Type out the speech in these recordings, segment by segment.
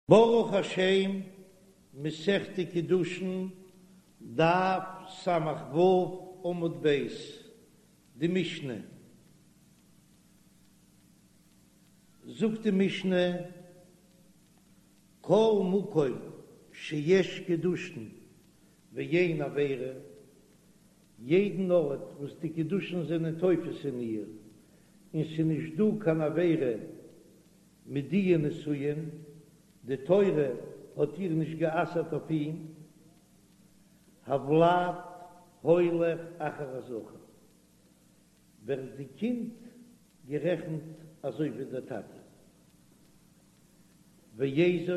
ברוך השם, מסכת קידושין, דף ס"ו עמוד ב', די משנה. זאגט די משנה, כל מקום שיש קידושין ואין עבירה, יעדן ארט וואס די קידושין זענען תופס אין איר, און ס'איז נישט דא קיין עבירה, מיט דיע נישואין, די תורה האט איר נישט גע'אסר'ט אויף אים, הולד הולך אחר הזכר, ווערט די קינד גערעכנט אזוי ווי דער טאטע. ואיזו,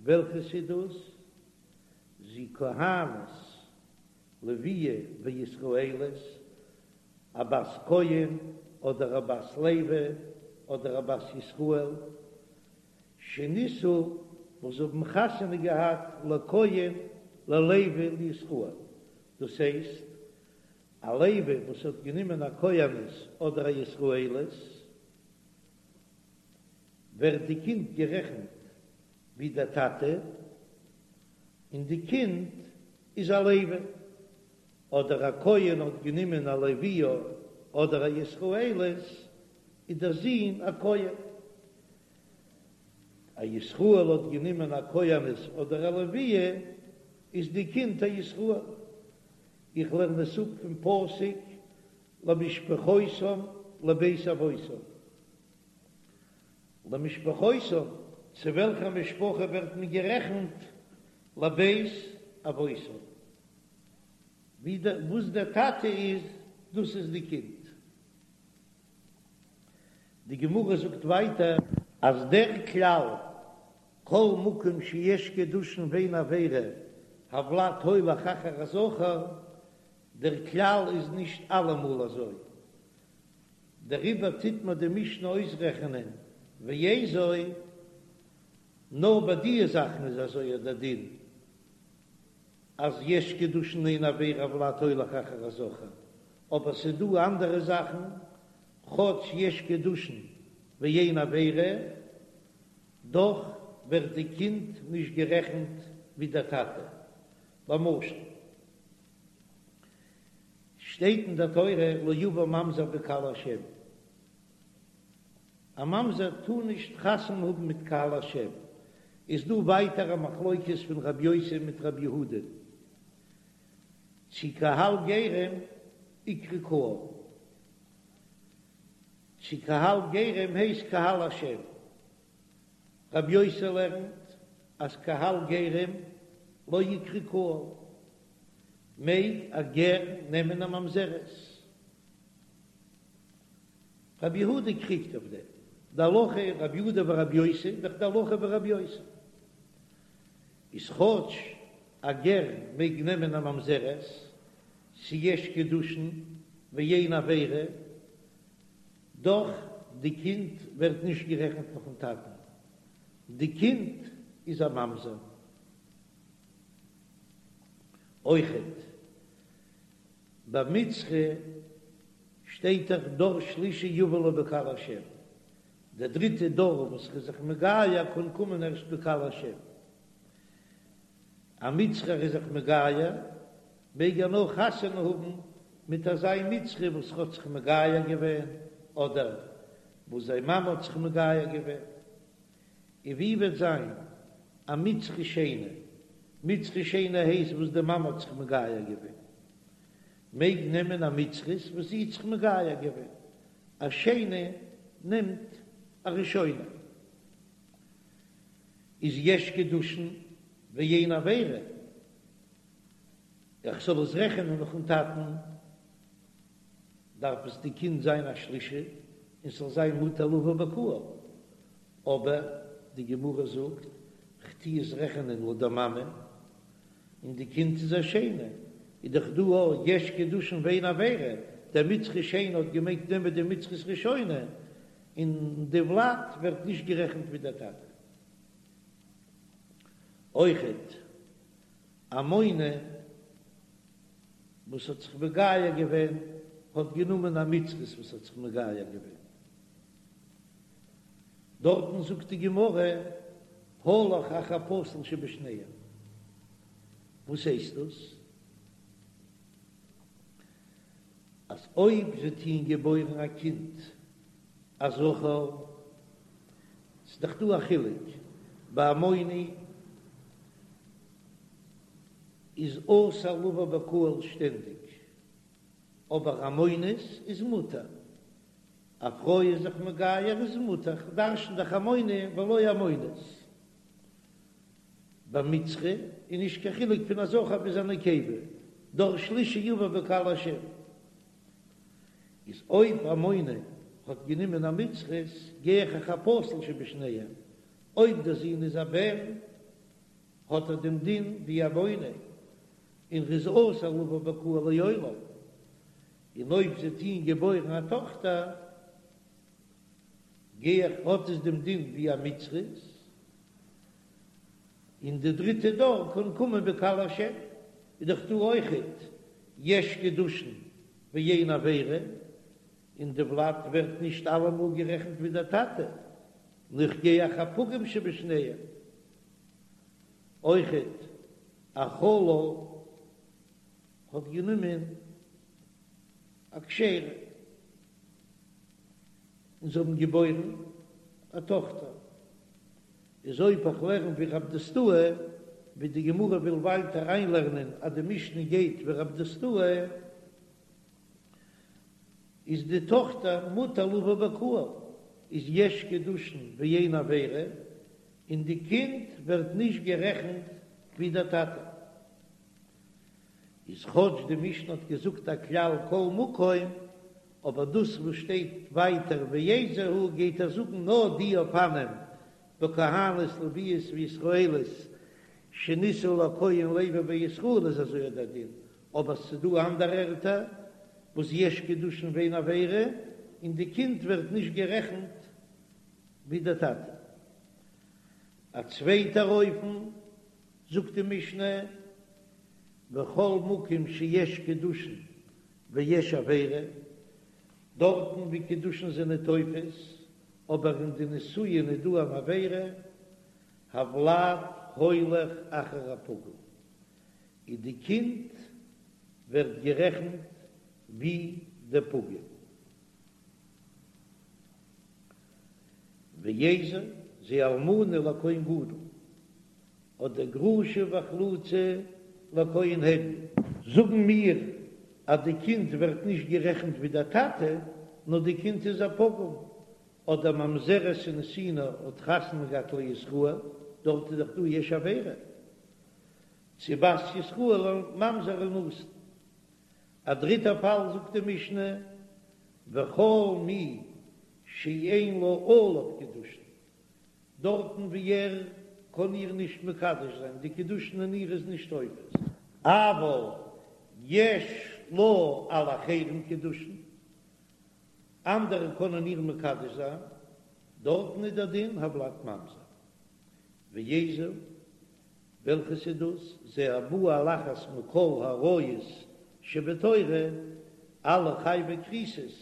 וועלכעס איז דאס? זו כהנת לוויה וישראלית, א בת כהן אדער א בת לוי אדער א בת ישראל, שנישאו וואס האבן חתונה געהאט לכהן ללוי לישראל, דאס הייסט א לוי וואס האט גענומען א כהנת אדער א ישראלית, ווערט די קינד גערעכנט ווי דער טאטע, און די קינד איז א לוי. אדער א כהן האט גענומען א לוויה אדער א ישראלית, איז דער זון א כהן. א ישראל האט גענומען א כהנת אדער א לוויה, איז די קינד א ישראל. איך לערן עס אפ פון פסוק למשפחותם לבית אבותם. למשפחותם, צו וועלכע משפחה ווערט מען גערעכנט? לבית אבותם. ווי דער וואס דער טאטע איז דאס איז די קינד. די גמרא זאגט ווייטער אז דער כלל כל מקום שיש קידושין ואין עבירה הולד הולך אחר הזכר, דער כלל איז נישט אלעמאל אזוי, דעריבער טוט מיר די משנה אויסרעכענען ואיזו, נאר ביי דיע זאכן איז אזוי דער דין. אז יש קידושין אין עבירה הולד הולך אחר הזכר, אבער ס'איז דא אנדערע זאכן, כאטש יש קידושין ואין עבירה, דאך ווערט די קינד נישט גערעכנט ווי דער טאטע. למשל, שטייט אין דער תורה לא יבא ממזר בקהל השם, א ממזר טאר נישט חתונה האבן מיט קהל השם, איז דא ווייטער א מחלוקת פון רב יוסי מיט רב יהודה צו קהל גרים איקרי קהל, צו קהל גרים הייסט קהל השם, רב יוסי לערנט אז קהל גרים לא איקרי קהל, מעג א גר נעמען א ממזרת. רבי יהודה קריגט אויף דעם, די הלכה איז רבי יהודה ורבי יוסי, דאך די הלכה ווי רבי יוסי איז כאטש א גר מעג נעמען א ממזרת, ס'יש קידושין ואין עבירה, דאך די קינד ווערט נישט גערעכנט נאכן טאטן, די קינד איז א ממזר. אויכעט ביי מצרי שטייט דאך דור שלישי יבא לו בקהל השם, דער דריטע דור וואס איז זיך מגייר קען קומען ערשט בקהל השם, א מצרי איז זיך מגייר מעג ער נאר חתונה האבן מיט אזא מצרי וואס האט זיך מגייר געווען אדער וואס זיין מאמע האט זיך מגייר געווען, און ווי וועט זיין א מצרי שני, מצרי שני הייסט וואס די מאמע האט זיך מגייר געווען, מעג נעמען א מצרית וואס זי האט זיך מגייר געווען, א שני נעמט א ראשונה, איז יש קידושין ואין עבירה, איך זאל עס רעכענען נאכן טאטן, דארף עס די קינד זיין א שלישי און ס'זאל זיין מותר לבא בקהל, אבער די גמרא זאגט כ'טו עס רעכענען לויט די מאמע, און די קינד איז א שני, איז דאך דא א יש קידושין ואין עבירה, דער מצרי שני האט געמעגט נעמען די מצרית ראשונה, און די ולד ווערט נישט גערעכנט ווי דער טאטע. אויכעט עמוני וואס האט זיך מגייר געווען האט גענומען א מצרית וואס האט זיך מגייר געווען. דארטן זאגט די גמרא. הלך אחר הפסול שבשניהם. וואס הייסט דאס? אז אויב זיי טוען געבוירן א קינד א זכר, ס'איז דאך דא א חילוק, ביי עמוני איז אסור לבוא בקהל שטענדיג, אבער עמונית איז מותר, א פרוי איז זיך מגייר איז מותר, כ'דרשן דאך עמוני ולא עמונית. ביי מצרי איז נישט קיין חילוק פון א זכר ביז א נקבה, דור שלישי יבא בקהל השם. איז אויב עמוני האט גענומען א מצרית גיי איך אחר הפסול שבשניהם, אויב דער זון איז א בן האט ער דעם דין ווי עמוני און ר'איז אסור לבוא בקהל לעולם, און אויב זיי טוען געבוירן א טאכטער גיי איך האט עס דעם דין ווי א מצרית, און די דריטע דור קען קומען בקהל השם, איז דאך דא אויכעט יש קידושין ואין עבירה, און די ולד ווערט נישט אלעמאל גערעכנט ווי דער טאטע, נאר איך גיי אחר הפגום שבשניהם, אויכעט א חלל האט גענומען א כשר'ע און זיי האבן געבוירן א טאכטער, איז אויב איך לערן ווי רב דוסתאי, ווי די גמרא וויל ווייטער אריינלערנען אז די משנה גייט ווי רב דוסתאי, איז די טאכטער מותר לבוא בקהל, איז יש קידושין ואין עבירה, און די קינד ווערט נישט גערעכנט ווי דער טאטע. איז כאטש די משנה האט געזאגט א כלל כל מקום, אבער דאס וואס שטייט ווייטער ואיזהו גייט ער זאגן נאר די אופנים בכהנת לוויות וישראלית שנישאו לכהן לוי וישראל איז אזוי דער דין, אבער ס'דא אנדערע ערטער וואס יש קידושין ואין עבירה און די קינד ווערט נישט גערעכנט ווי דער טאטע. א צווייטער אופן זאגט די משנה בכל מקום שיש קידושין ויש עבירה, דארטן ווי קידושין זענען תופס, אבער אין די נישואין איז דא אן עבירה, הוולד הולך אחר הפגום, און די קינד ווערט גערעכנט ווי די פגום. ואיזו זו אלמנה לכהן גדול. אדער גרושה וחלוצה לכהן הדיוט. זאגן מיר אז די קינד ווערט נישט גערעכנט ווי דער טאטע, נאר די קינד איז א פגום, אדער ממזרת ונתינה האט חתונה געהאט לישראל, דארט איז דאך דא יש עבירה, צו בת ישראל לממזר ונתין. א דריטע פאל זאגט די משנה, וכל מי שאין לה עליו קידושין, דארטן ווי ער קען איר נישט מקדש זיין, די קידושין אין איר איז נישט תופס, אבל יש לה על אחרים קידושין, אנדערע קענען איר מקדש זיין, דארטן איז דער דין הולד ממזר. ואיזו, וועלכעס איז דאס? זה הבא על אחת מכל העריות שבתורה, אלע חייבי כריתות,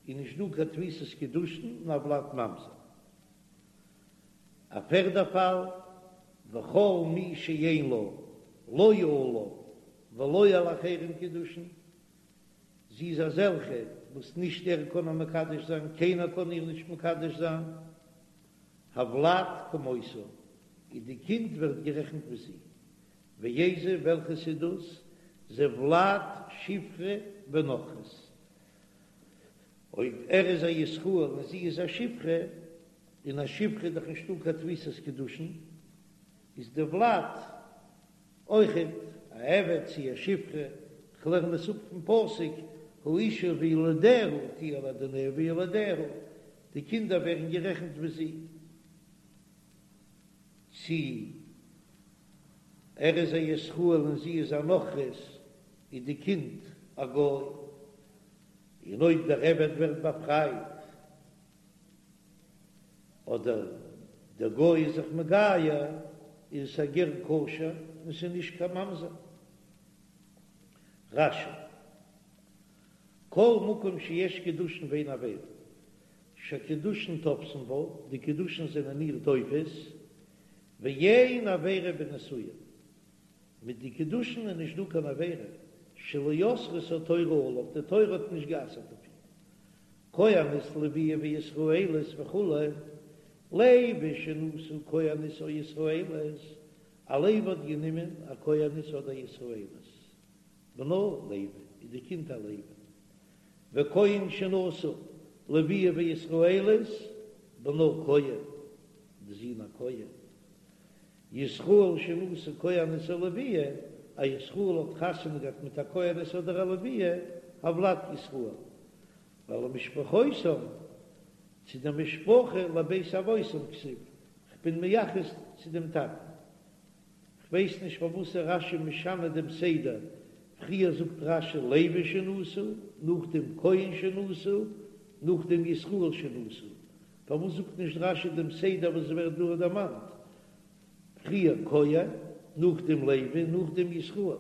איז נישט דא קיין תפיסת קידושין און הולד ממזר. א פערדע פאל, וכל מי שאין לה לא עליו ולא על אחרים קידושין, זי איז אזעלכע וואס נישט ער קען איר מקדש זיין, קיינער קען איר נישט מקדש זיין, הולד כמותה, און די קינד ווערט גערעכנט ווי זי. ואיזו, וועלכעס איז דאס? זה ולד שפחה ונכרית. אויב ער איז א ישראל און זי איז א שפחה, און א שפחה איז דאך נישטא קיין תפיסת קידושין, איז די ולד אויכעט א עבד צי א שפחה, כ'לערן עס אפ פון פסוק האשה וילדיה תהיה לאדוניה וילדיה, די קינדער ווערן גערעכנט ווי זי, צי ער איז א ישראל און זי איז א נכרית, איז די קינד א גוי. און אויב דער עבד ווערט באפרייט, אדער דער גוי איז זיך מגייר, איז עס א גר כשר און ס'איז נישט קיין ממזר. רש"י, כל מקום שיש קידושין ואין עבירה, שהקידושין תופסין בה, די קידושין זענען איר תופס, ואין עבירה בנישואין, מיט די קידושין איז נישט דא קיין עבירה, שלא אסרה התורה עליו, די תורה האט נישט גע'אסר'ט אויף אים. כהנת לוויה וישראלית וכו', לוי שנשא כהנת או ישראלית, א לוי האט גענומען א כהנת אדער ישראלית, בנו לוי, איז די קינד א לוי. וכהן שנשא לוויה וישראלית, בנו כהן, די זון א כהן. ישראל שנשא כהנת או לוויה, א ישראל האט חתונה געהאט מיט א כהנת אדער א לוויה, הולד ישראל, ולמשפחותם, צו די משפחה לבית אבותם כתיב, כ'בין מייחס צו דעם טאטן. כ'ווייס נישט פארוואס איז רש"י משנה דעם סדר, פריער זאגט רש"י לוי שנשא, נאכדעם כהן שנשא, נאכדעם ישראל שנשא, פארוואס זאגט נישט רש"י דעם סדר וואס ווערט דא דערמאנט, פריער כהן, נאכדעם לוי, נאכדעם ישראל?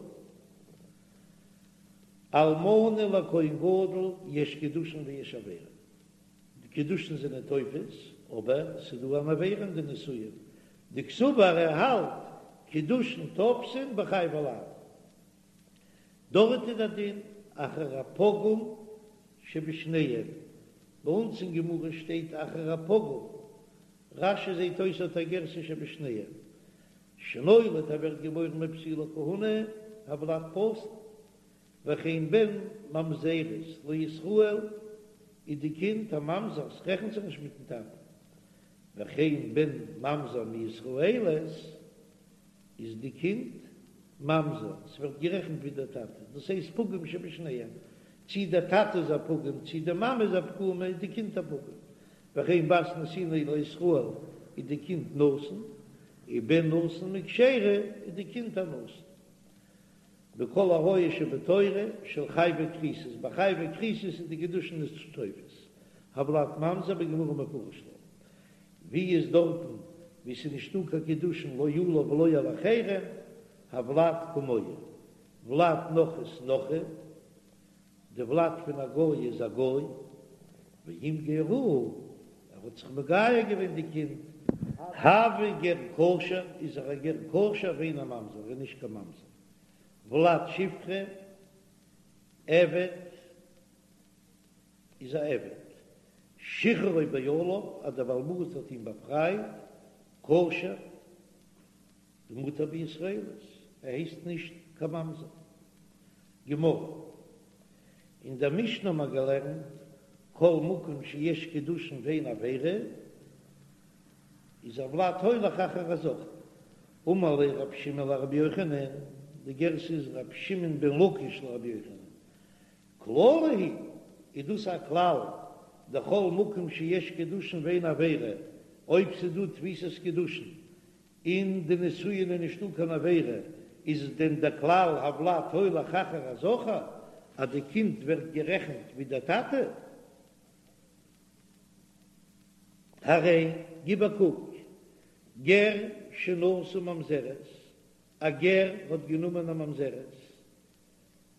אלמנה לכהן גדול יש קידושין ויש עבירה. די קידושין זענען תופס, אבער ס'איז דא אן עבירה אין די נישואין, דקסבר ער האלט קידושין תופסין בחייבי לאוין. דארט איז דער דין אחר הפגום שבשניהם, ביי אונז אין גמרא שטייט אחר הפגום, רש"י זעט אויס האט א גירסא שבשניהם, שנולד ער ווערט געבוירן מפסולי כהונה, הולד פסול. וכן בן ממזרת לישראל איז די קינד א ממזר, ס'רעכנט זיך נישט מיטן טאטן, וכן בן ממזר מישראלית איז די קינד ממזר, ס'ווערט גערעכנט ווי דער טאטע, דאס הייסט פגום שבשניהם, צי דער טאטע איז א פגום צי די מאמע איז א פגומה איז די קינד א פגום, וכן בת נתינה לישראל איז די קינד נתין, ובן נתין מכשרה איז די קינד א נתין. בכל עריות שבתורה של חייבי כריתות, ביי חייבי כריתות איז די קידושין נישט תופס, הולד ממזר בגמרא מפרש לה, ווי איז דארטן ווי ס'איז נישטא קיין קידושין לא עליו ולא על אחרים, הולד כמוהו, ולד נכרית נכרי, די ולד פון א גוי איז א גוי, ואם גיירוהו, ער האט זיך מגייר געווען די קינד, הוי גר כשר, איז ער א גר כשר ואינו ממזר, ער איז נישט קיין ממזר, ולד שפחה, עבד, איז א עבד, שחררו בעליו, אז דער בעל הבית האט אים באפרייט, כשר, ומותר בישראלית, ער הייסט נישט קיין ממזר. גמרא. אין דער משנה האט מען געלערנט, כל מקום שיש קידושין ואין עבירה, איז הולד הולך אחר הזכר. אמר ליה רבי שמעון לרבי יוחנן, די גירסא איז רבי שמעון בן לקיש לרבי יוחנן, כללא הוא, איז דאס א כלל, דכל מקום שיש קידושין ואין עבירה, אויב ס'איז דא תפיסת קידושין אין די נישואין איז נישטא קיין עבירה, איז דען דער כלל הולד הולך אחר הזכר אז די קינד ווערט גערעכנט ווי דער טאטע? הרי גיב א קוק, גר שנשא ממזרת, א גר האט גענומען א ממזרת,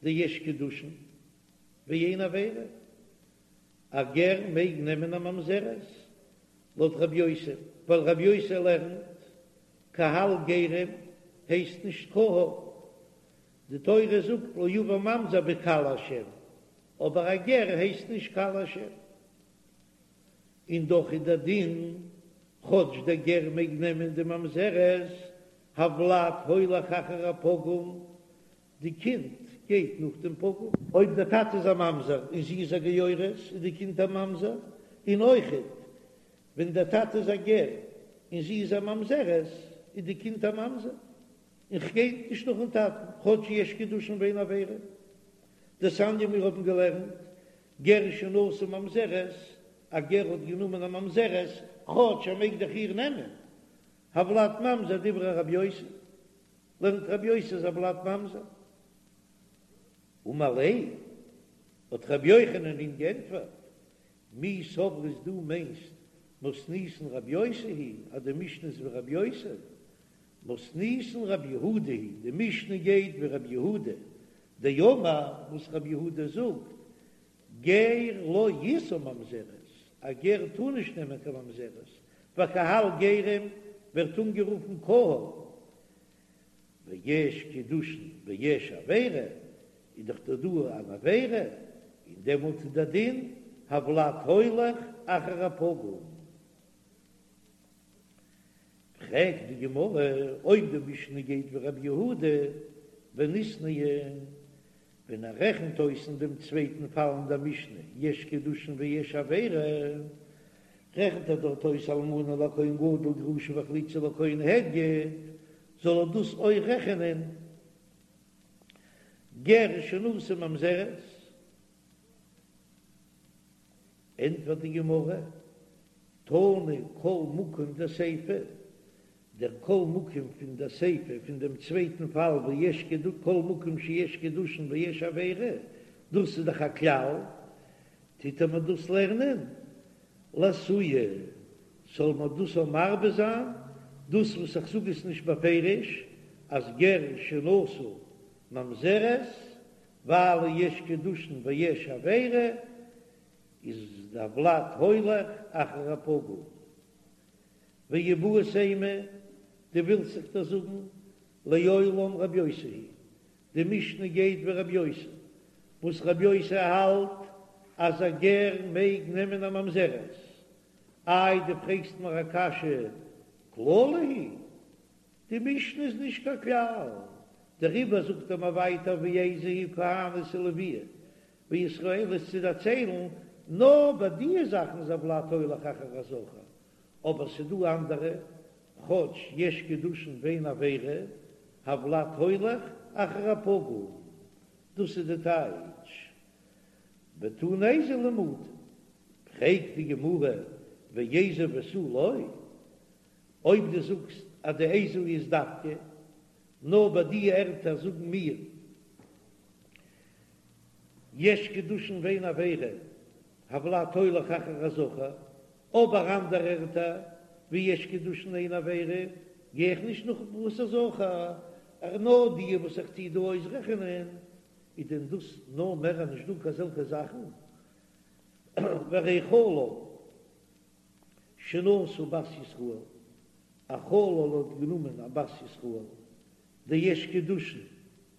דיש קידושין ואין עבירה, א גר מעג נעמען א ממזרת, לויט רבי יוסי, ווייל רבי יוסי לערנט קהל גרים הייסט נישט קהל, די תורה זאגט לא יבא ממזר בקהל השם, אבער א גר הייסט נישט קהל השם, און דאך איז דער דין כאטש דער גר מעג נעמען די ממזרת, הולד הולך אחר הפגום, די קינד גייט נאך דעם פגום. אויב דער טאטע איז א ממזר און זי איז א גיורת איז די קינד א ממזר, און אויכעט ווען דער טאטע איז א גר און זי איז א ממזרת איז די קינד א ממזר, און ס'גייט נישט נאכן טאטן כאטש יש קידושין ואין עבירה. דתניא מיר האבן געלערנט גר שנשא ממזרת, א גר האט גענומען א ממזרת כאטש ער מעג דאך איר נעמען, הולד ממזר דברי רבי יוסי. לערנט רבי יוסי אז הולד ממזר. אמר ליה, האט רבי יוחנן אים גענטפערט, מי סברת דו מיינסט מתניתין רבי יוסי היא אז די משנה איז ווי רבי יוסי? מתניתין רבי יהודה היא די משנה גייט ווי רבי יהודה דאמר וואס רבי יהודה זאגט גר לא ישא ממזרת, א גר טאר נישט נעמען קיין ממזרת, וקהל גרים. ווערט אנגערופן קהל, ויש קידושין ויש עבירה, איז דאך דא דא אן עבירה, און דעמאלט איז דער דין הולד הולך אחר הפגום. פרעגט די גמרא, אויב די משנה גייט ווי רבי יהודה וניתנייה, ווען ער רעכנט אויס אין דעם צווייטן פאל אין דער משנה יש קידושין ויש עבירה, רעכנט ער דארט אויס אלמנה לכהן גדול גרושה וחלוצה לכהן הדיוט, זאל ער דאס אויך רעכענען גר שנשא ממזרת? ענטפערט די גמרא, תנא כל מקום דסיפא, דער כל מקום פון דער סיפא פון דעם צווייטן פאל וואו יש כל מקום שיש קידושין ויש עבירה, דאס איז דאך א כלל, טוט ער מיר דאס לערנען לאתויי, זאל מיר דאס אויך מרבה זיין, דאס וואס איך זאג עס נישט בפירוש אז גר שנשא ממזרת ווייל יש קידושין ויש עבירה, איז דער ולד הולך אחר הפגום. ואיבעית אימא, דו ווילסט זיך דאס זאגן, לעולם רבי יוסי היא, די משנה גייט ווי רבי יוסי, וואס רבי יוסי האלט אז א גר מעג נעמען א ממזרת, איי דו פרעגסט מיר א קשיא כללא היא, די משנה איז נישט קיין כלל, דעריבער זאגט ער מיר ווייטער ואיזו היא כהנת ולויה וישראלית צו דערציילן, נאר ביי די זאכן איז הולד הולך אחר הזכר, אבער ס'דא אנדערע, כאטש יש קידושין ואין עבירה, הולד הולך אחר הפגום, דאס איז די טייטש ותנא איזהו למעוטי. פרעגט די גמרא ואיזהו ותו לא, אויב דו זאגסט אז די איזהו איז דווקא נאר ביי די ערטער זאגן מיר יש קידושין ואין עבירה, הולד הולך אחר הזכר, אבער אנדערע ערטער ווי יש קידושין אין עבירה גיי איך נישט נאך פאת הזכר, נאר די וואס איך טוה דא אויסרעכענען, איז דען דאס נאר מער אז נישט דא קיין אזעלכע זאכן? והרי חלל שנשא בת ישראל, א חלל האט גענומען א בת ישראל, דיש קידושין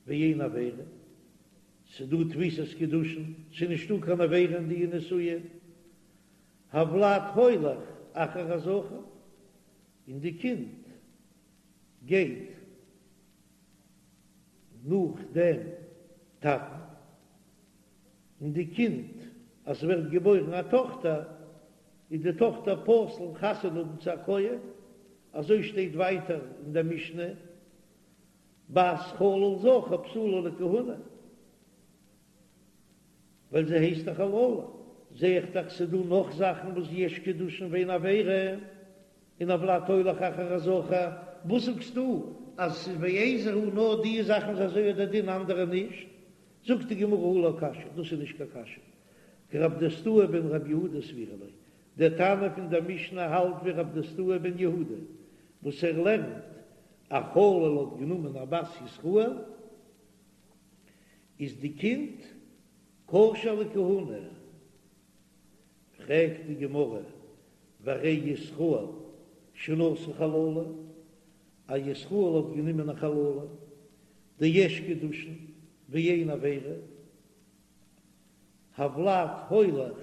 ואין עבירה, ס'דא תפיסת קידושין, ס'נישטא קיין עבירה אין די נישואין, הולד הולך אחר הזכר, און די קינד גייט נאך דעם טאטן, און די קינד אז ס'ווערט געבוירן א טאכטער, איז די טאכטער פסול חתונה האבן צו א כהן, אזוי שטייט ווייטער אין דער משנה, בת חלל זכר פסולה לכהונה, ווייל זי הייסט א חללה, זע איך דאך ס'דא נאך זאכן וואס יש קידושין ואין עבירה, און הולד הולך אחר הזכר, וואס זאגסטו אז ס'איז ואיזהו נאר די זאכן איז אזוי דער דין אנדערע נישט? זאגט די גמרא הא לא קשיא, דאס איז נישט קיין קשיא, כרב דוסתאי בן רב יהודה סבירא ליה, דער תנא פון דער משנה האלט ווי רב דוסתאי בן יהודה וואס ער לערנט א חלל האט גענומען א בת ישראל איז די קינד כשר לכהונה, פרעגט די גמרא והרי ישראל שנשא חללה, א ישראל האט גענומען א חללה דיש קידושין ואין עבירה, הולד הולך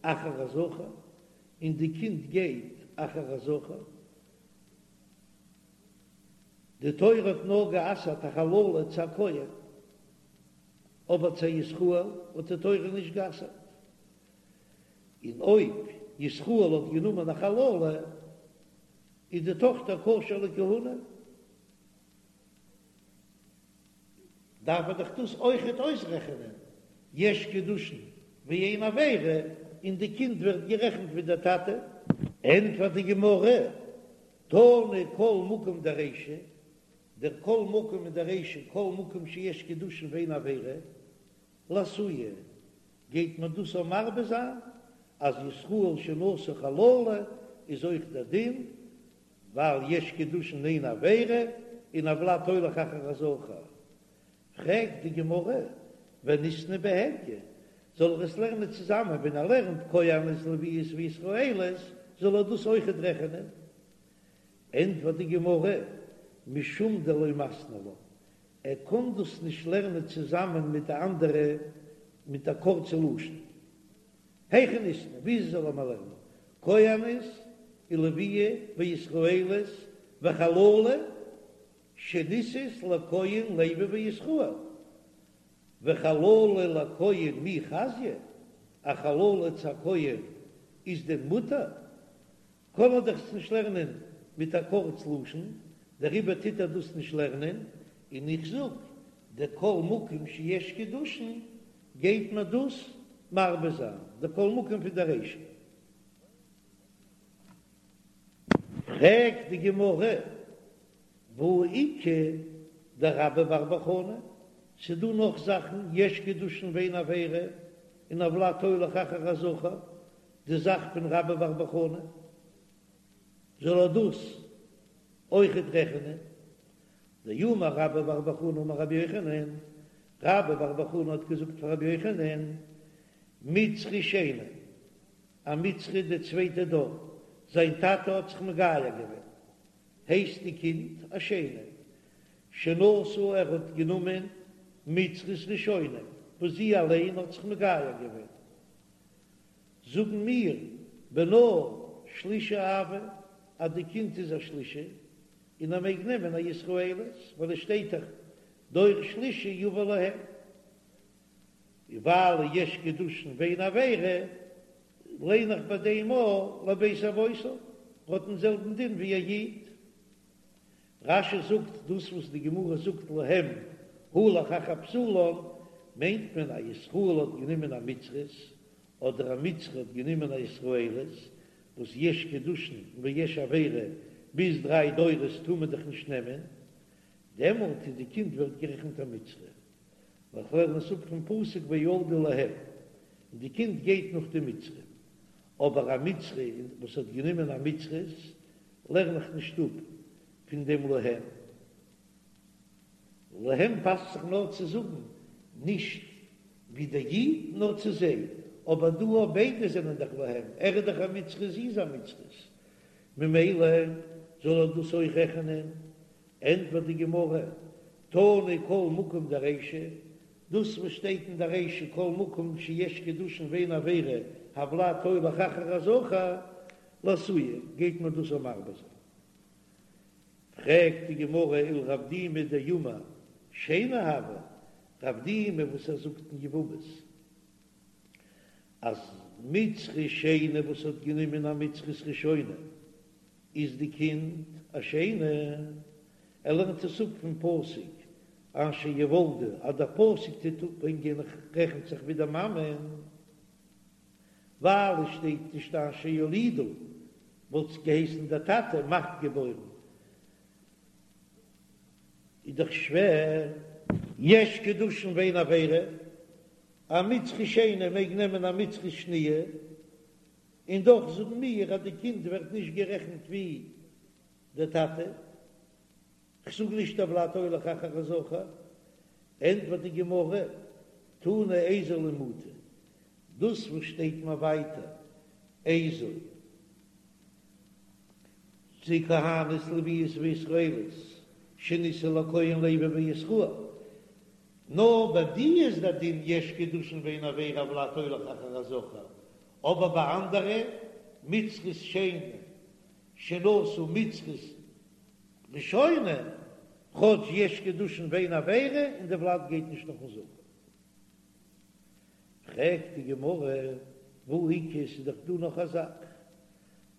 אחר הזכר, און די קינד גייט אחר הזכר, די תורה האט נאר גע'אסר'ט א חללה צו א כהן, אבער צו א ישראל האט די תורה נישט גע'אסר'ט, און אויב ישראל האט גענומען א חללה איז די טאכטער כשר לכהונה, דארף ער דאך דאס אויכעט אויסרעכענען, יש קידושין ואין עבירה, און די קינד ווערט גערעכנט ווי דער טאטע. ענטפערט די גמרא, תנא כל מקום דרישא, דער כל מקום אין דער רישא, כל מקום שיש קידושין ואין עבירה, לאתויי, גייט מען דאס אויך מרבה זיין, אז ישראל שנשא חללה איז אויך דער דין, ווייל יש קידושין אין עבירה, און הולד הולך אחר הזכר. פרעגט די גמרא, וניתני בהדיא, זאל ער עס לערנען צוזאמען, ווען ער לערנט כהנות לוויות וישראליות, זאל ער דאס אויכעט רעכענען. ענטפערט די גמרא, משום דלא מתני לה, ער קען דאס נישט לערנען צוזאמען מיט די אנדערע מיט א קורצע לשון. היכי ניתני, וויאזוי זאל ער מיר לערנען? כהנת ולויה וישראלית וחללה שנישאת לכהן לוי וישראל, וחללה לכהן מי חזיא, א חללה צו א כהן איז דען מותר? קען ער דאך עס נישט לערנען מיט א קורץ לשון, דעריבער טוט ער דאס נישט לערנען, און איך זאג, דכל מקום שיש קידושין גייט מען דאס מרבה זיין, דכל מקום פון די רישא. פרעגט די גמרא, והא איכא דרבה בר בר חנה, ס'דא נאך זאכן, יש קידושין ואין עבירה, און הולד הולך אחר הזכר, די זאך פון רבה בר בר חנה, זאל ער דאס אויכעט רעכענען? דאמר רבה בר בר חנה אמר רבי יוחנן, רבה בר בר חנה האט געזאגט פאר רבי יוחנן, מצרי שני, א מצרי די צווייטע דור, זיין טאטע האט זיך מגייר געווען, הייסט די קינד א שני, שנשא ער האט גענומען מצרית ראשונה וואס זי אליין האט זיך מגייר געווען, זאגן מיר בנה שלישי הוי אז די קינד איז א שלישי און ער מעג נעמען א ישראלית ווייל עס שטייט דאך דור שלישי יבא להם, און ווייל יש קידושין ואין עבירה ליין איך ביי דעם אויך לבית אבותיו האט דעם זעלבן דין ווי א איד. רש"י זאגט דאס וואס די גמרא זאגט להם הלך אחר בתולן מיינט מען א ישראל האט גענומען א מצרית אדער א מצרי האט גענומען א ישראלית וואס יש קידושין ויש עבירה ביז דריי דורות טאר מען דאך נישט נעמען דעמאלט איז די קינד ווערט גערעכנט א מצרי ווייל כ'לערן עס אפ פון פסוק וילדו להם און די קינד גייט נאך די מצרי אבער א מצרי וואס האט גענומען א מצרית לערן איך נישט אפ פון דעם להם. להם פאסט זיך נאר צו זאגן נישט ווי דער איד נאר צו זיי, אבער דא אויב ביידע זענען דאך להם, ער איז דאך א מצרי זי איז א מצרית, ממילא זאל ער דאס אויך רעכענען. ענטפערט די גמרא, תנא כל מקום דרישא, דאס וואס שטייט אין די רישא כל מקום שיש קידושין ואין עבירה הולד הולך אחר הזכר, לאתויי גייט מען דאס אויך מרבה זיין. פרעגט די גמרא ולרב דימי דאמר שני הוי, רב דימי וואס ער זאגט אין יבמות אז מצרי שני וואס האט גענומען א מצרית ראשונה איז די קינד א שני, ער לערנט עס אפ פון פסוק אשר יולדו אז דער פסוק טוט אפברענגען רעכנט זיך ווי די מאמע. ווייל עס שטייט נישט אשר יולידו, וואלט עס געהייסן דער טאטע מאכט געבוירן, איז דאך שווער. יש קידושין ואין עבירה, א מצרי שני מעג נעמען א מצרית שניה, און דאך זאגן מיר אז די קינד ווערט נישט גערעכנט ווי דער טאטע. כ'זאג נישט הולד הולך אחר הזכר, ענטפערט די גמרא, תנא איזו למעוטי, דאס וואס שטייט מיר ווייטער איזו זו כהנת לוויות וישראלית שנישאו לכהן לוי וישראל, נאר ביי די איז דער דין יש קידושין ואין עבירה הולד הולך אחר הזכר, אבער ביי אנדערע מצרית שני שנשא מצרית ראשונה, כאטש יש קידושין ואין עבירה און די ולד גייט נישט נאכן זכר. פרעגט די גמרא, והא איכא, ס'איז דאך דא נאך א זאך,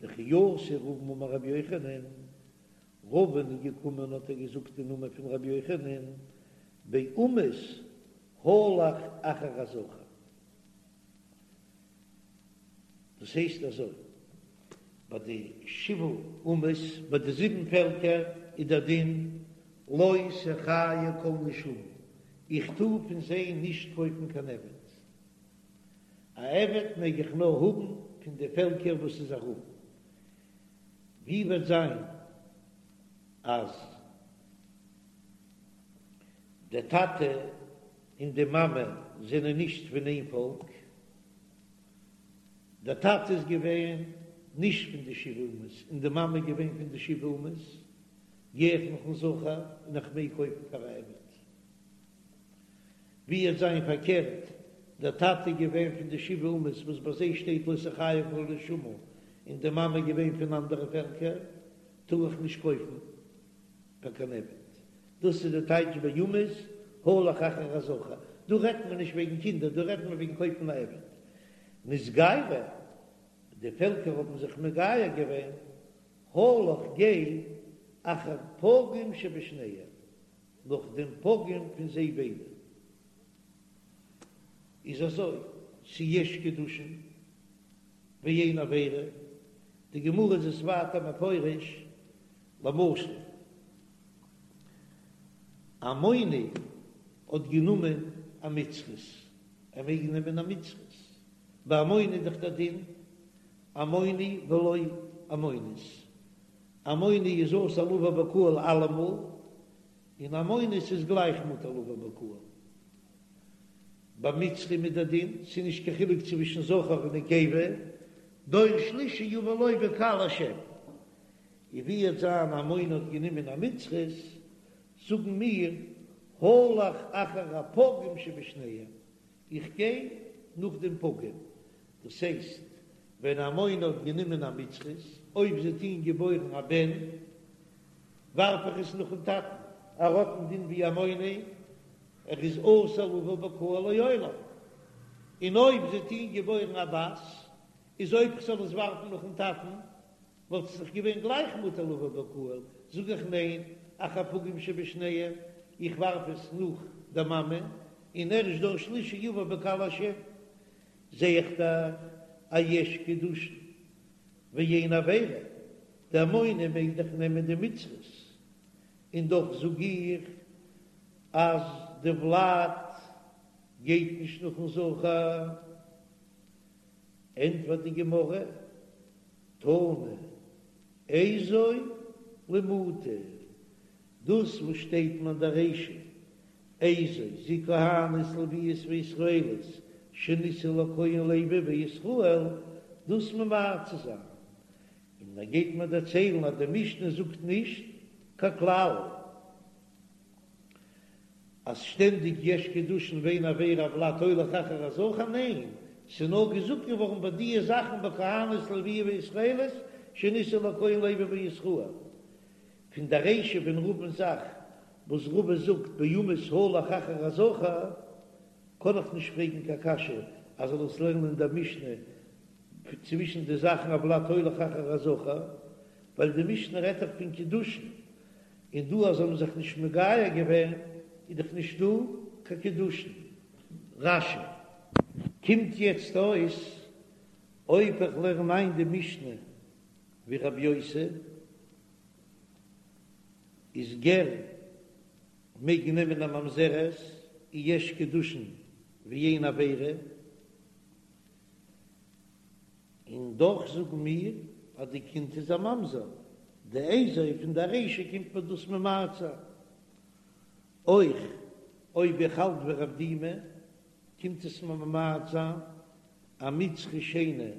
דכי אתא רבין אמר רבי יוחנן, רבין איז געקומען האט ער געזאגט אין נאמען פון רבי יוחנן, באומות הלך אחר הזכר. דאס הייסט אזוי, ביי די שבעה אומות, ביי די זיבן פעלקער איז דער דין לא תחיה כל נשמה, איך טאר פון זיי נישט קויפן קיין עבד, א עבד מעג איך נאר האבן פון די פעלקער וואס איז ארום, ווי וועט זיין אז דער טאטע און די מאמע זענען נישט פון איין פאלק, דער טאטע איז געווען. נישט פון די שבעה אומות און די מאמע איז געווען פון די שבעה אומות, גיי איך נאכן זכר און איך מעג קויפן פאר א עבד. ווי עט זיין פארקערט, דער טאטע איז געווען פון די שבעה אומות וואס ביי זיי שטייט לא תחיה כל נשמה, און די מאמע איז געווען פון אנדערע פעלקער, טאר איך נישט קויפן פאר קיין עבד. דאס איז די טייטש באומות הלך אחר הזכר. דא רעדט מען נישט וועגן קינדער, דא רעדט מען וועגן קויפן א עבד. נתגיירו, די פעלקער האבן זיך מגייר געווען, הלך גיי אחר פגום שבשניהם, נאך דעם פגום פון זיי ביידע. איז אזוי, ס'איז יש קידושין ואין עבירה, די גמרא איז עס ווייטער מפרש, למשל, עמוני האט גענומען א מצרית, ער מעג נעמען א מצרית, ביי עמוני איז דאך דער דין עמוני ולא עמונית, עמוני איז אסור לבוא בקהל אלעמאל, און עמונית איז גלייך מותר לבוא בקהל. ביי מצרים איז דער דין, ס'איז נישט קיין חילוק צווישן זכר און נקבה, דור שלישי יבא לו בקהל השם. און ווי עט זיין עמוני האט גענומען א מצרית, זאגן מיר, הלך אחר הפגום שבשניהם, איך גיי נאך דעם פגום, דאס הייסט, ווען עמוני האט גענומען א מצרית, אויב זי האט אים געבוירן א בן, ווארף איך עס נאכן טאטן, ער האט דעם דין ווי עמוני, ער איז אסור לבוא בקהל לעולם, און אויב זי האט אים געבוירן א בת, איז אויב כ'זאל עס ווארפן נאכן טאטן, וואלט עס דאך געווען גלייך מותר לבוא בקהל, זאג איך ניין, אחר פגום שבשניהם, איך ווארף עס נאך די מאמע, און ערשט דור שלישי יבא בקהל השם, זע איך דאך אז יש קידושין ואין עבירה, די עמוני מעג דאך נעמען די מצרית, און דאך זאג איך אז די ולד גייט נישט נאכן זכר. ענטפערט די גמרא, תנא איזו למעוטי, דאס וואס שטייט אין דער רישא, איזו זו כהנת לויות וישראלית שנישאו לכהן לוי וישראל, דאס ממעט צו זיין, און ער גייט מיר דערציילן אז די משנה זאגט נישט קיין כלל. אז שטענדיג יש קידושין ואין עבירה הולד הולך אחר הזכר, ניין, ס'איז נאר געזאגט געווארן ביי דיע זאכן ביי כהנות לויה וישראלית שנישאו לכהן לוי וישראל. פון די רישא פון רבא'ן זאך וואס רבא זאגט באומות הלך אחר הזכר, קען איך נישט פרעגן קיין קשיא אז זאל עס לערנען אין דער משנה צווישן די זאכן הולד הולך אחר הזכר, ווייל די משנה רעדט דאך פון קידושין, און דא אז זיי האבן זיך נישט מגייר געווען איז דאך נישט דא קיין קידושין. רש"י. קומט יעצט אויס אויב איך לערן איין די משנה ווי רבי יוסי איז גר מעג נעמען א ממזרת און יש קידושין ואין עבירה, און דאך זאגן מיר אז די קינד איז א ממזר, די איזו פון די רישא קומט מיר דאס ממעט זיין. אויך אויב איך האלט ווי רב דימי קומט עס מיר ממעט זיין א מצרי שני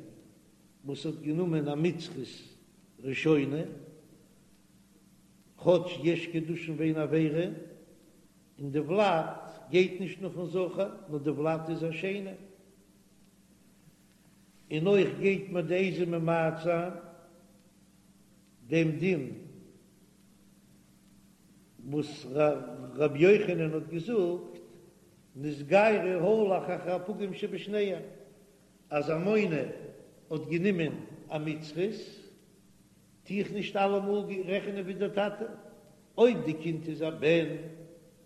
וואס האט גענומען א מצרית ראשונה, כאטש יש קידושין ואין עבירה, און די ולד גייט נישט נאכן זכר נאר די ולד איז א שני. און אויך גייט מיר די איזו ממעט זיין דעם דין וואס ר' יוחנן האט געזאגט, נתגיירו הלך אחר הפגום שבשניהם, אז עמוני האט גענומען א מצרית, טו איך נישט אלעמאל רעכענען ווי דער טאטע, אויב די קינד איז א בן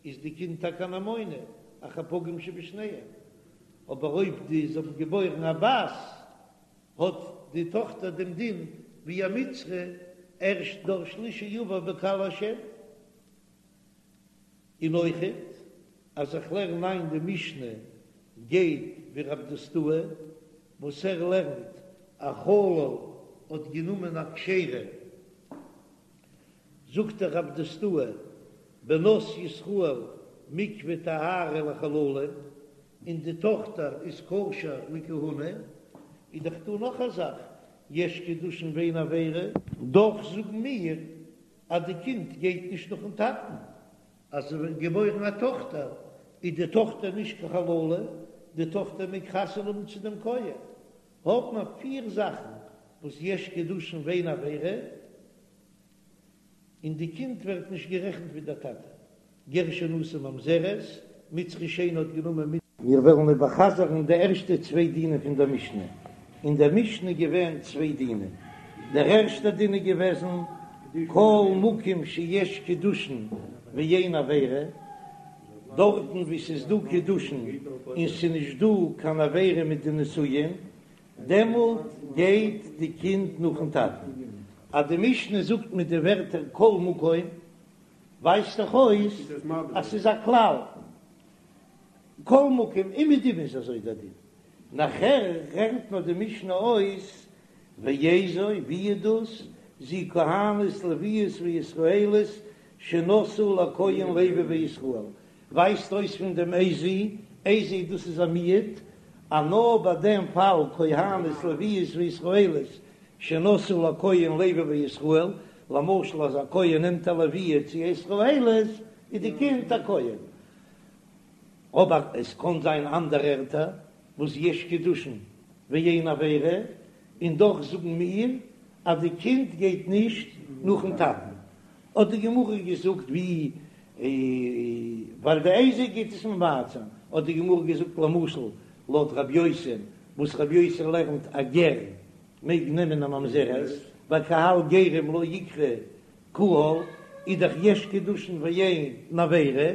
איז די קינד טאקע אן עמוני, אחר פגום שבשניהם, אבער אויב די זיי האבן געבוירן א בת, האט די טאכטער דעם דין ווי א מצרי, ערשט דור שלישי יבא בקהל השם. און אויכעט אז איך לערן איין די משנה גייט ווי רב דוסתאי וואס ער לערנט א חלל האט גענומען א כשרה, זאגט דער רב דוסתאי בנות ישראל מקווה טהרה לחללים, און די טאכטער איז כשר לכהונה, איז דאך דא נאך א זאך. יש קידושין ואין עבירה, דאך זאגן מיר אז די קינד גייט נישט נאכן טאטן, אז עס ווערט געבוירן א טאכטער איז די טאכטער נישט קיין חללה, די טאכטער מעג חתונה האבן צו דעם כהן. האט מען פיר זאכן וואס יש קידושין ואין עבירה, און די קינד ווערט נישט גערעכנט ווי דער טאטע. גר שנשא ממזרת, מצרי שני האט גענומען מיט. מיר וועלן איבערחזר'ן די ערשטע צוויי דינים פון דער משנה. אין דער משנה איז געווען צוויי דינים. דער ערשטער דין איז געוועזן, כל מקום שיש קידושין ואין עבירה, דארטן וואו ס'איז דא קידושין און ס'איז נישט דא קיין עבירה מיט די נישואין, דעמאלט גייט די קינד נאכן טאטן. אז די משנה זאגט מיט די ווערטער כל מקום, ווייזט דאך אויס אז ס'איז א כלל, כל מקום אומעדום איז אזוי דער דין. נאכער רעכנט נאר די משנה אויס ואיזו, ווי איז דאס, זו כהנת לוויות וישראלית שנשאו לכהן לוי וישראל, ווייזט אויס פון דעם איזו, איזו דאס איז א מיעוט, אז נאר ביי דעם פאל כהנת לוויות וישראלית שנשאו לכהן לוי וישראל, למשל אז א כהן נעמט א לוויה צו א ישראלית איז די קינד א כהן, אבער עס קען זיין אנדערע ערטער וואס יש קידושין ואין עבירה, און דאך זאגן מיר אז די קינד גייט נישט נאכן טאטן, האט די גמרא געזאגט ווי ווייל די איזו גייט עס ממעט זיין, האט די גמרא געזאגט למשל לויט רב יוסי וואס רב יוסי לערנט א גר מעג נעמען א ממזרת, ווייל קהל גרים לא איקרי קהל איז דאך יש קידושין ואין עבירה,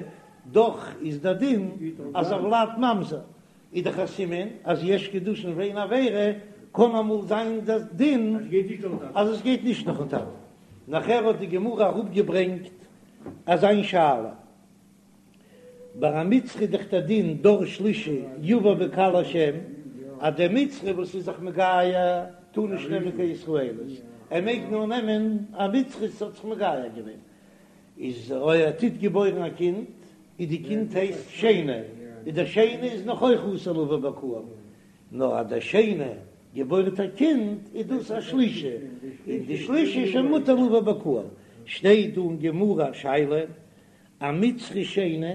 דאך איז דער דין אז הולד ממזר איז דאך א סימן אז יש קידושין ואין עבירה, קען אמאל זיין דער דין אז עס גייט נישט נאכן טאטן. נאכער האט די גמרא אראפגעברענגט אזיין שאלה, ביי א מצרי איז דאך דער דין דור שלישי יבא בקהל השם, אז דער מצרי וואס איז זיך מגייר טאר נישט נעמען קיין ישראלית, ער מעג נאר נעמען א מצרית וואס האט זיך מגייר געווען, איז אויב ער טוט געבוירן א קינד, איז די קינד הייסט שני, איז דער שני איז נאך אויך אסור לבא בקהל, נאר אז דער שני געבוירט א קינד איז דאס א שלישי, און די שלישי איז שוין מותר לבא בקהל. שטייט דא אין גמרא א שאלה, א מצרי שני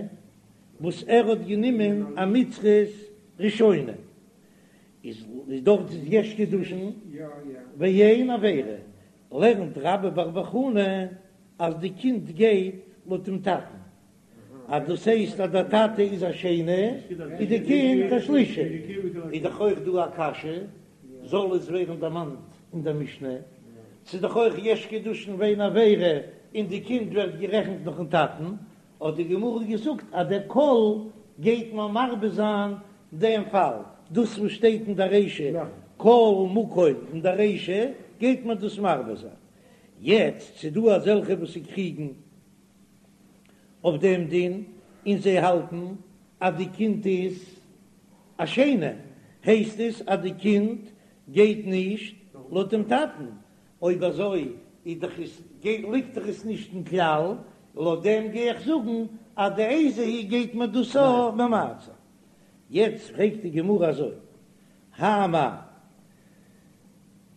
וואס ער האט גענומען א מצרית ראשונה, איז דארט איז יש קידושין ואין עבירה, לערנט רבה בר בר חנה אז די קינד גייט לויט דעם טאטן, אז דאס הייסט אז דער טאטע איז א שני איז די קינד א שלישי, איז דאך אויך דא א קשיא, זאל עס ווערן דערמאנט אין דער משנה, ס'איז דאך אויך יש קידושין ואין עבירה און די קינד ווערט גערעכנט נאכן טאטן, האט די גמרא געזאגט אז דער כל גייט מיר מרבה זיין דעם פאל, דאס וואס שטייט אין דער רישא כל מקום אין דער רישא גייט מען דאס מרבה זיין. יעצט ס'איז דא אזעלכע וואס קריגן אויף דעם דין און זיי האלטן אז די קינד איז א שני, הייסט עס אז די קינד גייט נישט לויט דעם טאטן, אויב אזוי איז דאך עס ליגט דאך עס נישט אין כלל, לויט דעם גיי איך זאגן אז די איזו היא גייט מען דאס אויך ממעט זיין. יעצט פרעגט די גמרא אזוי, האי מאי,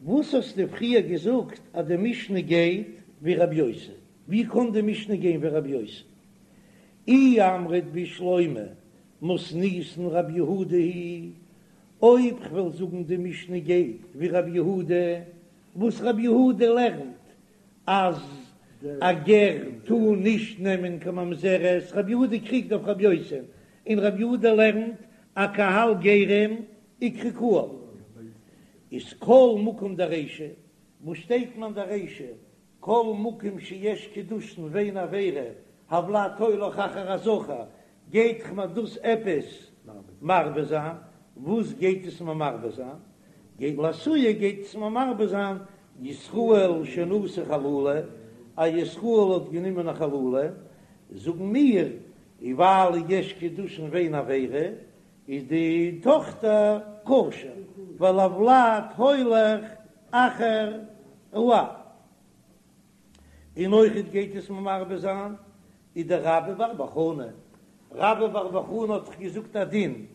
וואס האסטו פריער געזאגט אז די משנה גייט ווי רבי יוסי? ווי קען די משנה גיין ווי רבי יוסי? אי אמרת בשלמא מתניתין רבי יהודה היא, אויב כ'וועל זאגן די משנה גייט ווי רבי יהודה, וואס רבי יהודה לערנט אז א גר טאר נישט נעמען קיין ממזרת, רבי יהודה קריגט אויף רבי יוסי, און רבי יהודה לערנט אז קהל גרים איקרי קהל, איז כל מקום דרישא, וואס שטייט מען דרישא כל מקום שיש קידושין ואין עבירה, הולד הולך אחר הזכר, גייט מיר דאס עפעס מרבה זיין? וואס גייט עס מיר מרבה זיין? גייט לאתויי גייט עס מיר מרבה זיין ישראל שנשא חללה, א ישראל האט גענומען א חללה, זאגן מיר ווייל יש קידושין ואין עבירה, איז די טאכטער כשר, ווייל הולד הולך אחר האב. און אויכעט גייט עס מיר מרבה זיין ודרבה בר בר חנה, רבה בר בר חנה האט דאך געזאגט א דין,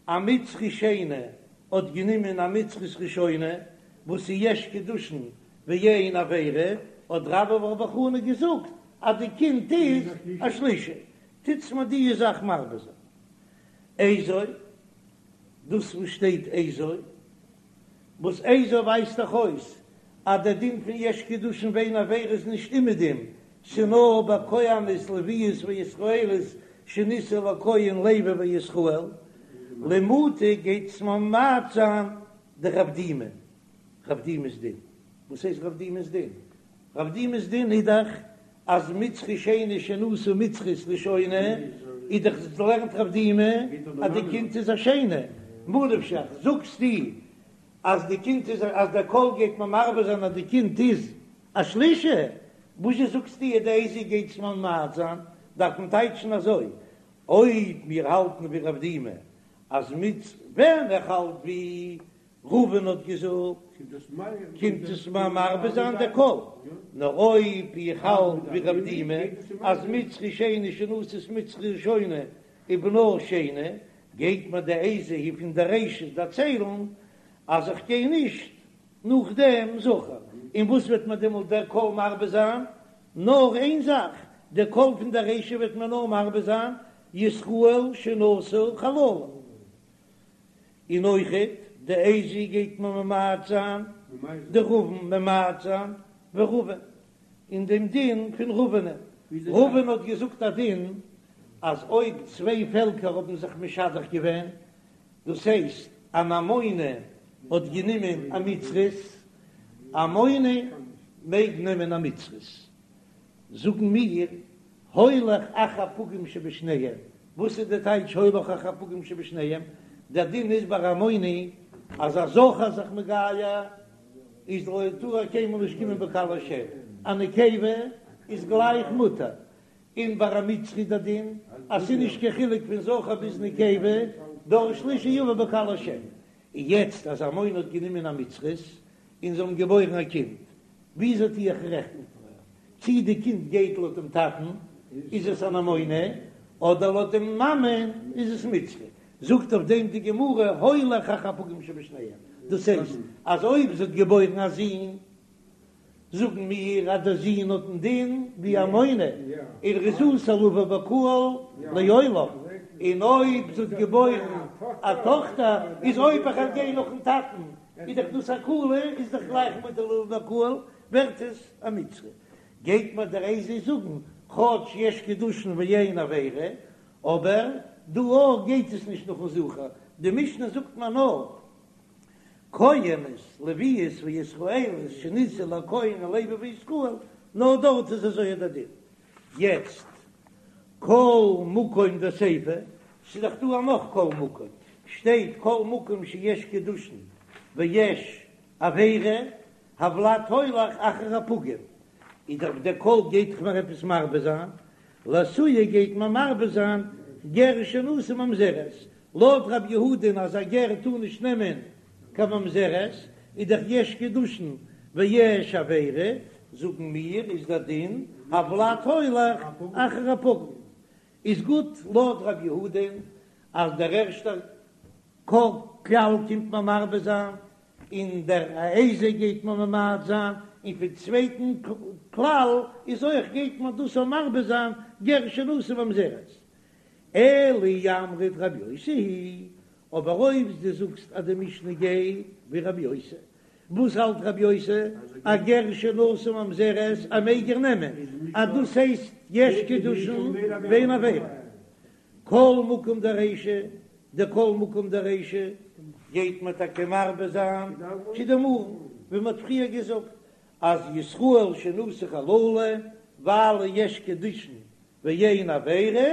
א מצרי שני האט גענומען א מצרית ראשונה. וואס איז יש קידושין ואין עבירה, האט רבה בר בר חנה געזאגט אז די קינד איז א שלישי, טוטס מיר די זאך מרבה זיין. איזו, דאס וואס שטייט איזו, וואס איזו ווייזט דאך אויס אז דער דין פון יש קידושין ואין עבירה איז נישט אומעדום, ס'נאר ביי כהנות לוויות וישראליות שנישאו לכהן לוי וישראל, למעוטי גייט עס ממעט זיין דרב דימי, רב דימי'ס דין, וואס הייסט רב דימי'ס דין? רב דימי'ס דין איז דאך אז מצרי שני שנשא מצרית ראשונה, איז דאך לערנט רב דימי אז די קינד איז א שני, מה נפשך זאגסטו אז די קינד איז אז דער כל גייט מען מרבה זיין אז די קינד איז א שלישי, וואזשע זאגסטו אז די איזו גייט עס ממעט זיין, דארף מען טייטשן אזוי, אויב מיר האלטן ווי רב דימי אז מיט ווען איך האלט ווי רובין האט געזאגט קומט עס מיר מרבה זיין דער כל, נאר אויב איך האלט ווי רב דימי אז מצרי שני שנשאת מצרית ראשונה ובנה שני, גייט מיר די איזו היא פון די רישא דערציילן אז איך גיי נישט נאך דעם זכר, און וואס וועט מיר דעמאלט דער כל מרבה זיין? נאר איין זאך, דער כל פון דער רישא וועט מיר נאר מרבה זיין ישראל שנשא חללה. און אויכעט די איזו גייט מען ממעט זיין דרבין ממעט זיין ורבין אין דעם דין פון רבין'ען, רבין האט געזאגט א דין אז אויב צוויי פעלקער האבן זיך משדך געווען, דאס הייסט אן עמוני האט גענומען א מצרית, עמוני מעג נעמען א מצרית, זאגן מיר הולך אחר פגום שבשניהם, וואס איז די טייטש הולך אחר פגום שבשניהם? דער דין איז ביי עמוני אז א זכר איז זיך מגייר איז לא טאר ער קיינמאל נישט קומען בקהל השם, א נקבה איז גלייך מותר, און ביי א מצרי דער דין אז ס'איז נישט קיין חילוק פון זכר ביז נקבה, דור שלישי יבא בקהל השם, און יעצט אז עמוני האט גענומען א מצרית און זיי האבן געבוירן א קינד, וויאזוי טו איך רעכטן? צי די קינד גייט לויט דעם טאטן איז עס אן עמוני, אדער לויט דעם מאמען איז עס מצרי? זאגט אויף דעם די גמרא הולך אחר פגום שבשניהם, דאס הייסט אז אויב זי האט געבוירן א זון, זאגן מיר אז דער זון האט דעם דין ווי עמוני, און ער איז אסור לבוא בקהל לעולם, און אויב זי האט געבוירן א טאכטער, איז אויב איך וועל גיין נאכן טאטן איז דאך דאס א קולא, איז דאך גלייך מותר לבוא בקהל, ווערט עס א מצרי. גייט מיר דער איזו זאגן, כאטש יש קידושין ואין עבירה, אבער דא אויך גייט עס נישט נאכן זכר, די משנה זאגט מיר נאר כהנות, לוויות וישראליות שנישאו לכהן לוי וישראל, נאר דארט איז אזוי דער דין. יעצט כל מקום דסיפא, ס'איז דאך דא א נאך כל מקום, שטייט כל מקום שיש קידושין ויש עבירה, הולד הולך אחר הפגום, איז דאך דער כל גייט דאך מיר עפעס מרבה זיין, לאתויי גייט מען מרבה זיין גר שנשא ממזרת, לויט רב יהודה'ן אז א גר טאר נישט נעמען קיין ממזרת, איז דאך יש קידושין ויש עבירה, זאגן מיר איז דער דין הולד הולך אחר הפגום, איז גוט לויט רב יהודה'ן אז דער ערשטער כלל קומט מען מרבה זיין, און דער איזו גייט מען ממעט זיין, און פון צווייטן כלל איז אויך גייט מען דאס אויך מרבה זיין גר שנשא ממזרת. אלא אי אמרת רבי יוסי היא, אבער אויב דו זאגסט אז די משנה גייט ווי רבי יוסי, וואס האלט רבי יוסי? א גר שנשא ממזרת א מעג ער נעמען, אז דאס הייסט יש קידושין ואין עבירה. כל מקום דרישא, די כל מקום דרישא גייט מען טאקע מרבה זיין כדאמרן, ווי מען האט פריער געזאגט אז ישראל שנשא חללה ווייל יש קידושין ואין עבירה,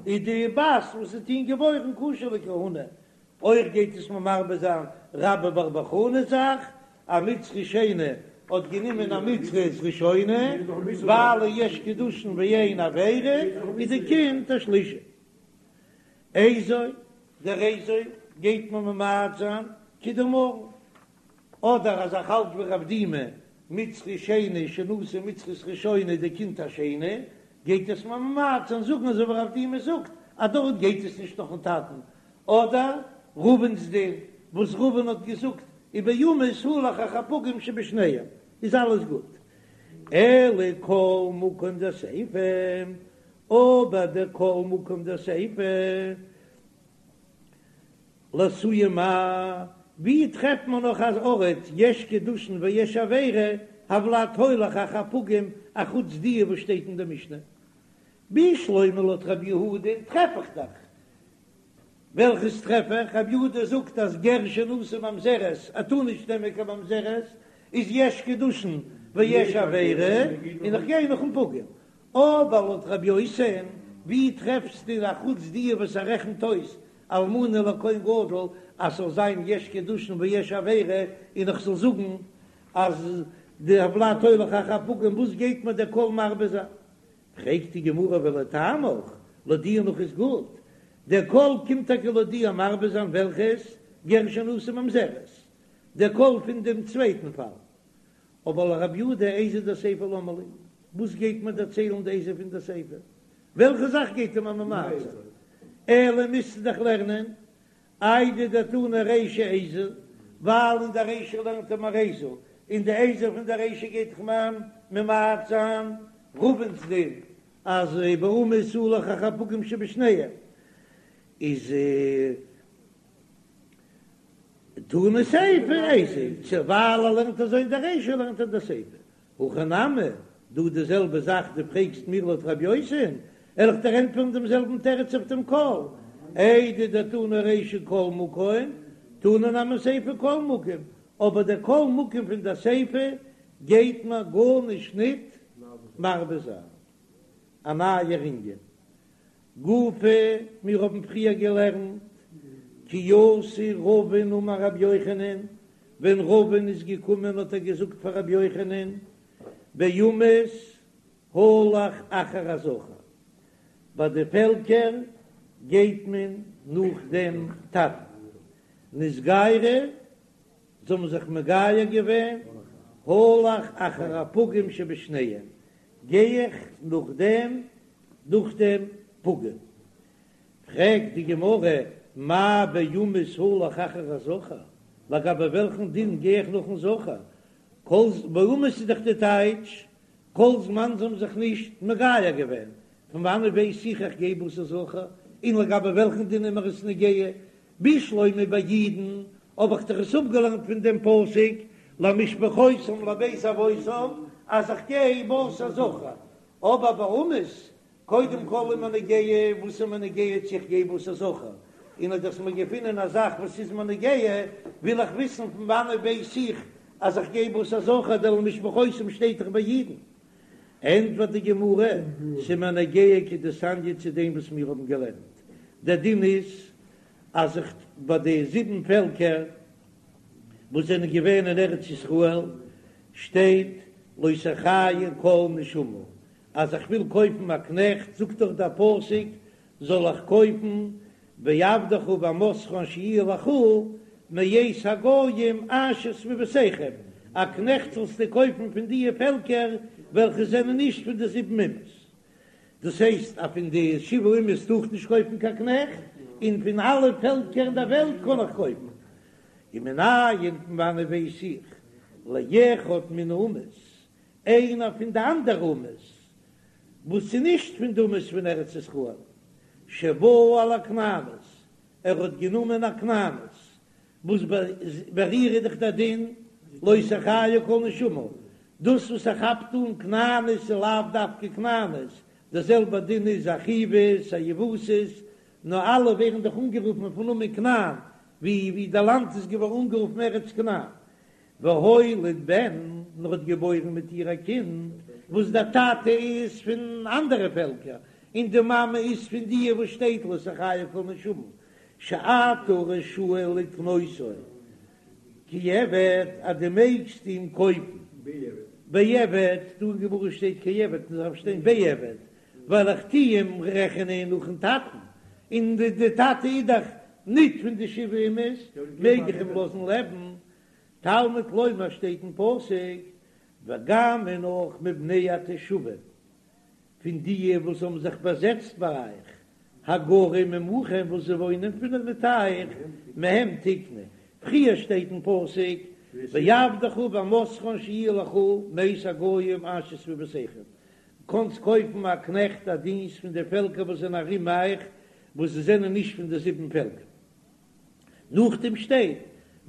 איז די בת וואס וועט אים געבוירן כשר לכהונה, אויך גייט עס מיר מרבה זיין רבה בר בר חנה זאך, א מצרי שני האט גענומען א מצרית ראשונה, ווייל יש קידושין ואין עבירה, איז די קינד א שלישי. איזו, דער איזו גייט מען ממעט זיין כדאמרן, אדער אז איך האלט ווי רב דימי, מצרי שני שנשא מצרית ראשונה די קינד א שני, גייט עס מיר ממעט זיין זאגן אזוי ווי רב דימי זאגט אז דארט גייט עס נישט נאכן טאטן, אדער רבין'ס דין וואס רבין האט געזאגט. ובאומות הלך אחר הפגום שבשניהם, איז אלעס גוט. אלא כל מקום דסיפא, אבער דער כל מקום דסיפא, לאתויי מאי, ווי טרעפט מען נאך אן ארט יש קידושין ויש עבירה, הולד הולך אחר הפגום, אחוץ די וואס שטייט אין די משנה? בשלמא לויט רב יהודה טרעף איך דאך. וועלכעס טרעף איך? רב יהודה זאגט אז גר שנשא ממזרת ער טאר נישט נעמען קיין ממזרת, איז יש קידושין ויש עבירה, און איך גיי נאכן פגום. אבער לויט רבי יוסי'ן, ווי טרעפסטו אחוץ די וואס ער רעכנט אויס אלמנה לכהן גדול אז ס'זאל זיין יש קידושין ויש עבירה, און איך זאל זאגן אז די הולד הולך אחר הפגום, וואס גייט מיר דער כל מרבה זיין? פרעגט די גמרא ולטעמיך, לויט דיר נאך איז גוט, דער כל קומט טאקע לויט דיר מרבה זיין וועלכעס גר שנשא ממזרת, דער כל פון דעם צווייטן פאל, אבער לרב יהודה איזו דסיפא למה לי, וואס גייט מיר דערציילן די איזו פון די סיפא, וועלכע זאך גייט ער מיר ממעט זיין, אלא מוזטו דאך לערנען איידי דתנא רישא איזו, ווייל אין די רישא לערנט ער מיר איזו, און די איזו פון די רישא גייט דאך מיר ממעט זיין רבין'ס דין אז באומות הלך אחר הפגום שבשניהם איז תנא סיפא איזו, צו ווייל ער לערנט אזוי אין די רישא לערנט ער די סיפא. הכא נמי, דא די זעלבע זאך דו פרעגסט מיר לויט רבי יוסי'ן, וועל איך דיר ענטפערן דעם זעלבן תירוץ אויף דעם כל, איידי דתנא רישא כל מקום, תנא נמי סיפא כל מקום, אבער דער כל מקום פון דער סיפא גייט מיר גארנישט ניט מרבה זיין. א נייער ענין. גופא, מיר האבן פריער געלערנט, כי אתא רבין אמר רבי יוחנן, ווען רבין איז געקומען האט ער געזאגט פאר רבי יוחנן, באומות הלך אחר הזכר, ביי די פעלקער גייט מען נאך דעם טאטן, נתגיירו, זיי האבן זיך מגייר געווען, הלך אחר הפגום שבשניהם, גיי איך נאך דעם נאך דעם פגום. פרעגט די גמרא, מאי באומות הלך אחר הזכר, לגבי וועלכן דין גיי איך נאכן זכר? כל באומות איז דאך די טייטש, כל זמן זיי האבן זיך נישט מגייר געווען, פון וואנעט ווייס איך איך גיי בתר זכר, און לגבי וועלכן דין איז מיר עס נוגע? בשלמא ביי אידן האב איך דאך עס אפגעלערנט פון דעם פסוק למשפחותם לבית אבותם אז איך גיי בתר זכר, אבער באומות, קודם כל איז מיר נוגע וואס איז מיר נוגע צו איך גיי בתר זכר, און אויב דו האסט מיר געפונען א זאך וואס איז מיר נוגע, וויל איך וויסן פון וואנעט ווייס איך אז איך גיי בתר זכר, דער למשפחותם שטייט דאך ביי אידן. ענטפערט די גמרא, ס'איז מיר נוגע כדתניא צו דעם וואס מיר האבן געלערנט, דער דין איז אז איך ביי די זיבן פעלקער וואס זענען געווען אין ארץ ישראל שטייט לא תחיה כל נשמה, אז איך וויל קויפן א קנעכט זאגט דאך דער פסוק זאל איך קויפן ועבדך ואמתך אשר יהיו לך מאת הגוים אשר סביבותיכם, א קנעכט זאלסטו קויפן פון דיע פעלקער וועלכע זענען נישט פון די זיבן אומות. דאס הייסט אז פון די שבעה אומות טאר איך נישט קויפן קיין קנעכט, און פון אלע פעלקער אין דער וועלט קען איך קויפן. ומנין פון וואנעט ווייס איך לאחד מן האומות, איינער פון די אנדערע אומות וואס איז נישט פון די אומות פון ארץ ישראל, שבא על הכנענית, ער האט גענומען א כנענית, וואס ביי איר איז דאך דער דין לא תחיה כל נשמה, דאס וואס ער כאפט אן כנענית איז לאו דווקא כנענית, דער זעלבער דין איז א חוית א יבוסית, נאר אלע ווערן דאך אנגערופן אויפן נאמען כנען, ווי ווי די לאנד איז געווארן אנגערופן ארץ כנען. והוליד בן, און ער האט געבוירן מיט איר א קינד, וואס דער טאטע איז פון אנדערע פעלקער, און די מאמע איז פון דיע וואס שטייט לא תחיה כל נשמה, שאתה רשאי לקנותו כעבד, אז דו מעגסט אים קויפן בעבד, דא אין גמרא שטייט כעבד, און עס דארף שטיין בעבד, ווייל איך טו אים רעכענען נאכן טאטן, און די טאטע איז דאך ניט פון די שבעה אומות, מעג איך אים לאזן לעבן, תלמוד לומר שטייט אין פסוק, וגם און אויך מבני התושבים, פון דיע וואס האבן זיך באזעצט ביי אייך, הגרים עמכם וואס זיי וואוינען פון מיט אייך, מהם תקנה, פריער שטייט אין פסוק בעבדך ובאמתך שיהיו לך מאת הגוים אשר סביבותיכם, קאנסט קויפן א קנעכט א דינסט פון די פעלקער וואס זענען ארום אייך וואס זיי זענען נישט פון די זיבן פעלקער. נאכדעם שטייט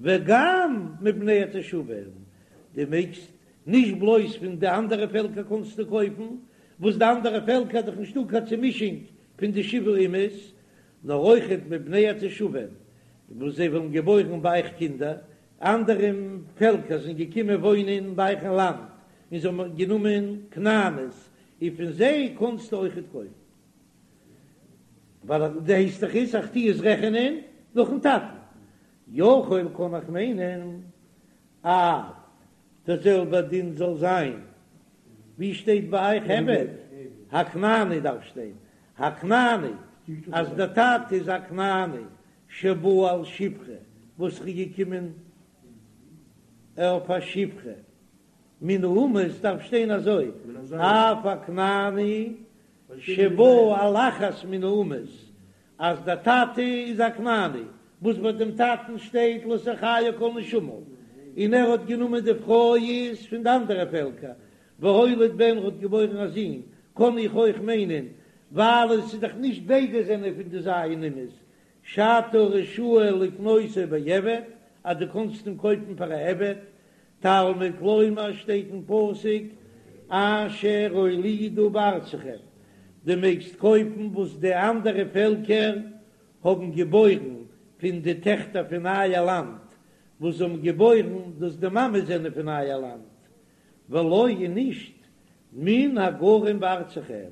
וגם מבני התושבים, דו מעגסט נישט בלויז פון די אנדערע פעלקער קאנסטו קויפן, וואס די אנדערע פעלקער איז דאך נישטא קיין צומישונג פון די שבעה אומות, נאר אויכעט מבני התושבים וואס זיי וועלן געבוירן ביי אייך קינדער, אנדערע פעלקער זענען געקומען וואוינען ביי אייך אין לאנד און זיי האבן גענומען כנעניות, און פון זיי קאנסטו אויכעט קויפן. ווייל דו הייסט דאך איז איך טו עס רעכענען נאכן טאטן, יכול קען איך מיינען אף דער זעלבער דין זאל זיין ווי שטייט ביי אייך עבד הכנעני דארף שטיין הכנעני אז דער טאטע איז א כנעני שבא על שפחה וואס איז געקומען אויף א שפחה מן האומות דארף שטיין אזוי אף הכנעני שבא על אחת מן האומות, אז דער טאטע איז א כנעני, וואס ביי דעם טאטן שטייט לא תחיה כל נשמה, און ער האט גענומען די פרוי איז פון די אנדערע פעלקער, והוליד בן האט געבוירן א זון, קען איך אויך מיינען, ווייל עס איז דאך נישט ביידע זענען פון די ז' אומות, שאתה רשאי לקנותו בעבד, אז דו קאנסט אים קויפן פאר א עבד, תלמוד לומר שטייט אין פסוק אשר הולידו בארצכם, דו מעגסט קויפן וואס די אנדערע פעלקער האבן געבוירן פון די טעכטער פון אייער לאנד, וואס זיי האבן געבוירן דאס די מאמעס זענען פון אייער לאנד, ולא און נישט מן הגרים בארצכם,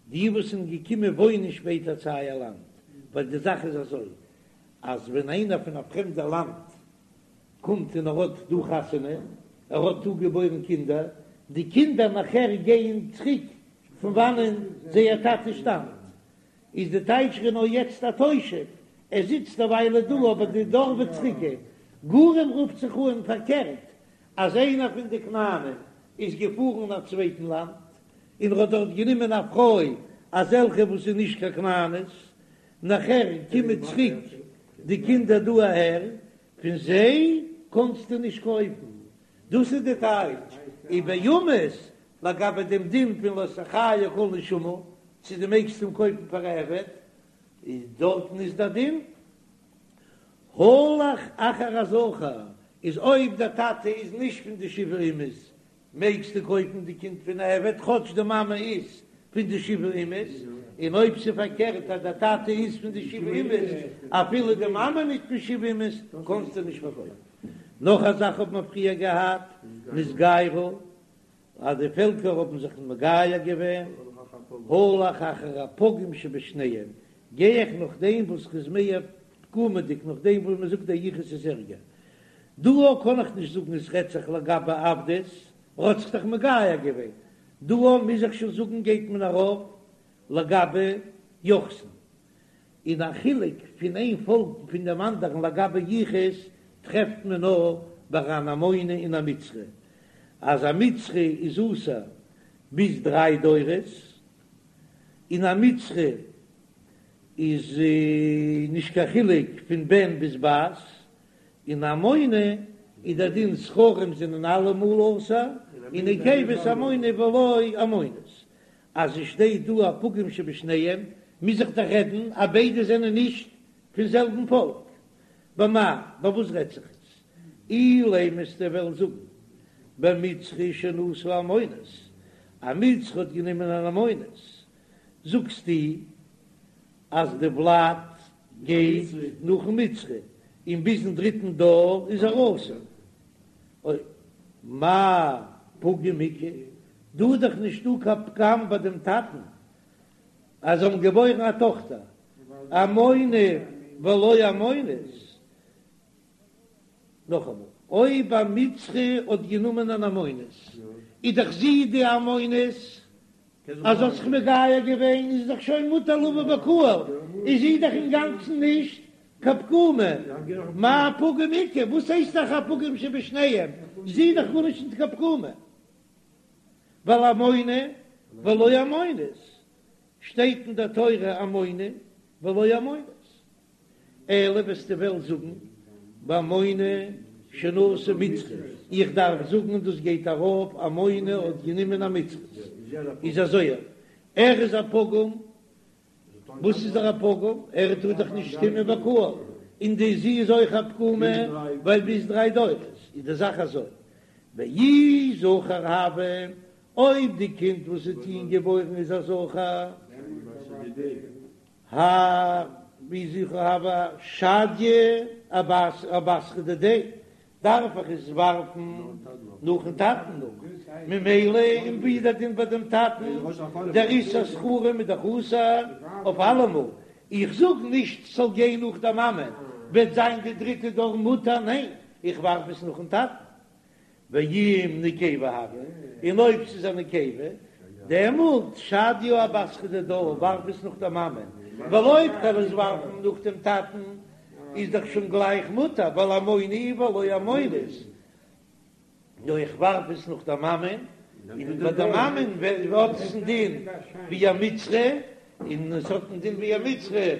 די וואס זענען געקומען וואוינען שפעטער צו אייער לאנד, ווייל די זאך איז אזוי אז ווען איינער פון א פרעמדע לאנד קומט און ער האט דא חתונה, ער האט דא געבוירן קינדער, די קינדער נאכער גייען צוריק פון וואנען זייער טאטע שטאמט, איז די טייטש ער איז נאר יעצט א תושב, ער זיצט א וויילע דא אבער די דור וועט צוריק גיין. גרים רופט זיך אן פארקערט, אז איינער פון די כנענים איז געפארן אין א צווייטן לאנד און ער האט דארט גענומען א פרוי אזעלכע וואס איז נישט קיין כנענית, נאכער קומען צוריק די קינדער דא אהער, פון זיי קאנסטו נישט קויפן, דאס איז די טייטש ובאומות לגבי דעם דין פון לא תחיה כל נשמה, צו דו מעגסט אים קויפן פאר א עבד, איז דארטן איז דער דין הלך אחר הזכר, איז אויב דער טאטע איז נישט פון די שבעה אומות מעגסטו קויפן די קינד פון א עבד כאטש די מאמע איז פון די שבעה אומות, און אויב ס'איז פארקערט אז דער טאטע איז פון די שבעה אומות אפילו די מאמע נישט פון שבעה אומות קענסטו נישט פארקויפן. נאך א זאך האט מען פריער געהאט נתגיירו אז די פעלקער האבן זיך מגייר געווען, הלך אחר הפגום שבשניהם, גיי איך נאך דעם וואס איז מער פגומ'דיג נאך דעם וואס מ'זאגט דער יחוס איז ערגער. דא קען איך נישט זאגן עס רעדט זיך לגבי עבדות, ער האט זיך דאך מגייר געווען. דא מוז איך שוין זאגן גייט מען ארויף לגבי יוחסין. און א חילוק פון איין פאלק פון דעם אנדערן לגבי יחוס טרעפט מען נאר ביי אן עמוני און א מצרי, אז א מצרי איז אסור ביז דריי דורות, און א מצרי איז נישט קיין חילוק פון בן ביז בת, און עמוני איז דער דין זכרים זענען אלעמאל אסור, און נקבות עמוני ולא עמונית. אז עס שטייט דא הפגום שבשניהם, מוז איך דאך רעדן אז ביידע זענען נישט פון זעלבן פאלק. במאי, ביי וואס רעדט זיך עס? אילימא וועסטו וועלן זאגן במצרי שנשא עמונית, א מצרי האט גענומען אן עמונית, זאגסטו אז די ולד גייט נאכן מצרי און ביזן דריטן דור איז ער אסור. אוי, מאי פגום איכא, דא איז דאך נישטא קיין פגם ביי דעם טאטן אז זיי האבן געבוירן א טאכטער עמוני ולא עמונית. נאכאמאל, אויב א מצרי האט גענומען אן עמונית, איז דאך זי די עמונית, אז זי האט זיך מגייר געווען איז דאך שוין מותר לבוא בקהל, איז זי דאך אינגאנצן נישט קיין פגומה, מאי פגום איכא, וואס הייסט דאך הפגום שבשניהם, זי איז דאך גארנישט נישט קיין פגומה, ווייל עמוני ולא עמונית, שטייט אין דער תורה עמוני ולא עמונית, אלא וועסטו וועלן זאגן. בעמוני שנשא מצרית, איך דארף זאגן דאס גייט ארויף עמוני האט גענומען א מצרית, איז אזוי ער איז א פגום, וואס איז ער א פגום? ער טאר דאך נישט קומען בקהל, און די זי איז אויך א פגומה ווייל ביז דריי דורות איז די זאך אזוי, ואי זכר הוה, אויב די קינד וואס וועט איהם געבוירן איז א זכר, הא ואי זכר הוה שדייה אבתרא דידיה, דארף איך עס ווארפן נאכן טאטן נאך, ממילא און ווי איז דער דין ביי דעם טאטן, דער איסור זכרים איז דאך אסור אויף אלעמאל, איך זאג נישט ס'זאל גיין נאך דער מאמע, וועט זיין די דריטע דור מותר, ניין, איך ווארף עס נאכן טאטן. ואם נקבה הוה, און אויב ס'איז א נקבה, דעמאלט שדייה אבתרא דידה, ווארף עס נאך דער מאמע, ווייל אויב כ'וועל עס ווארפן נאך דעם טאטן, איז דאך שוין גלייך מותר, ווייל עמוני ולא עמונית, נאר איך ווארף עס נאך דער מאמען, און ביי דער מאמען האט עס א דין ווי א מצרי, און עס האט א דין ווי א מצרי,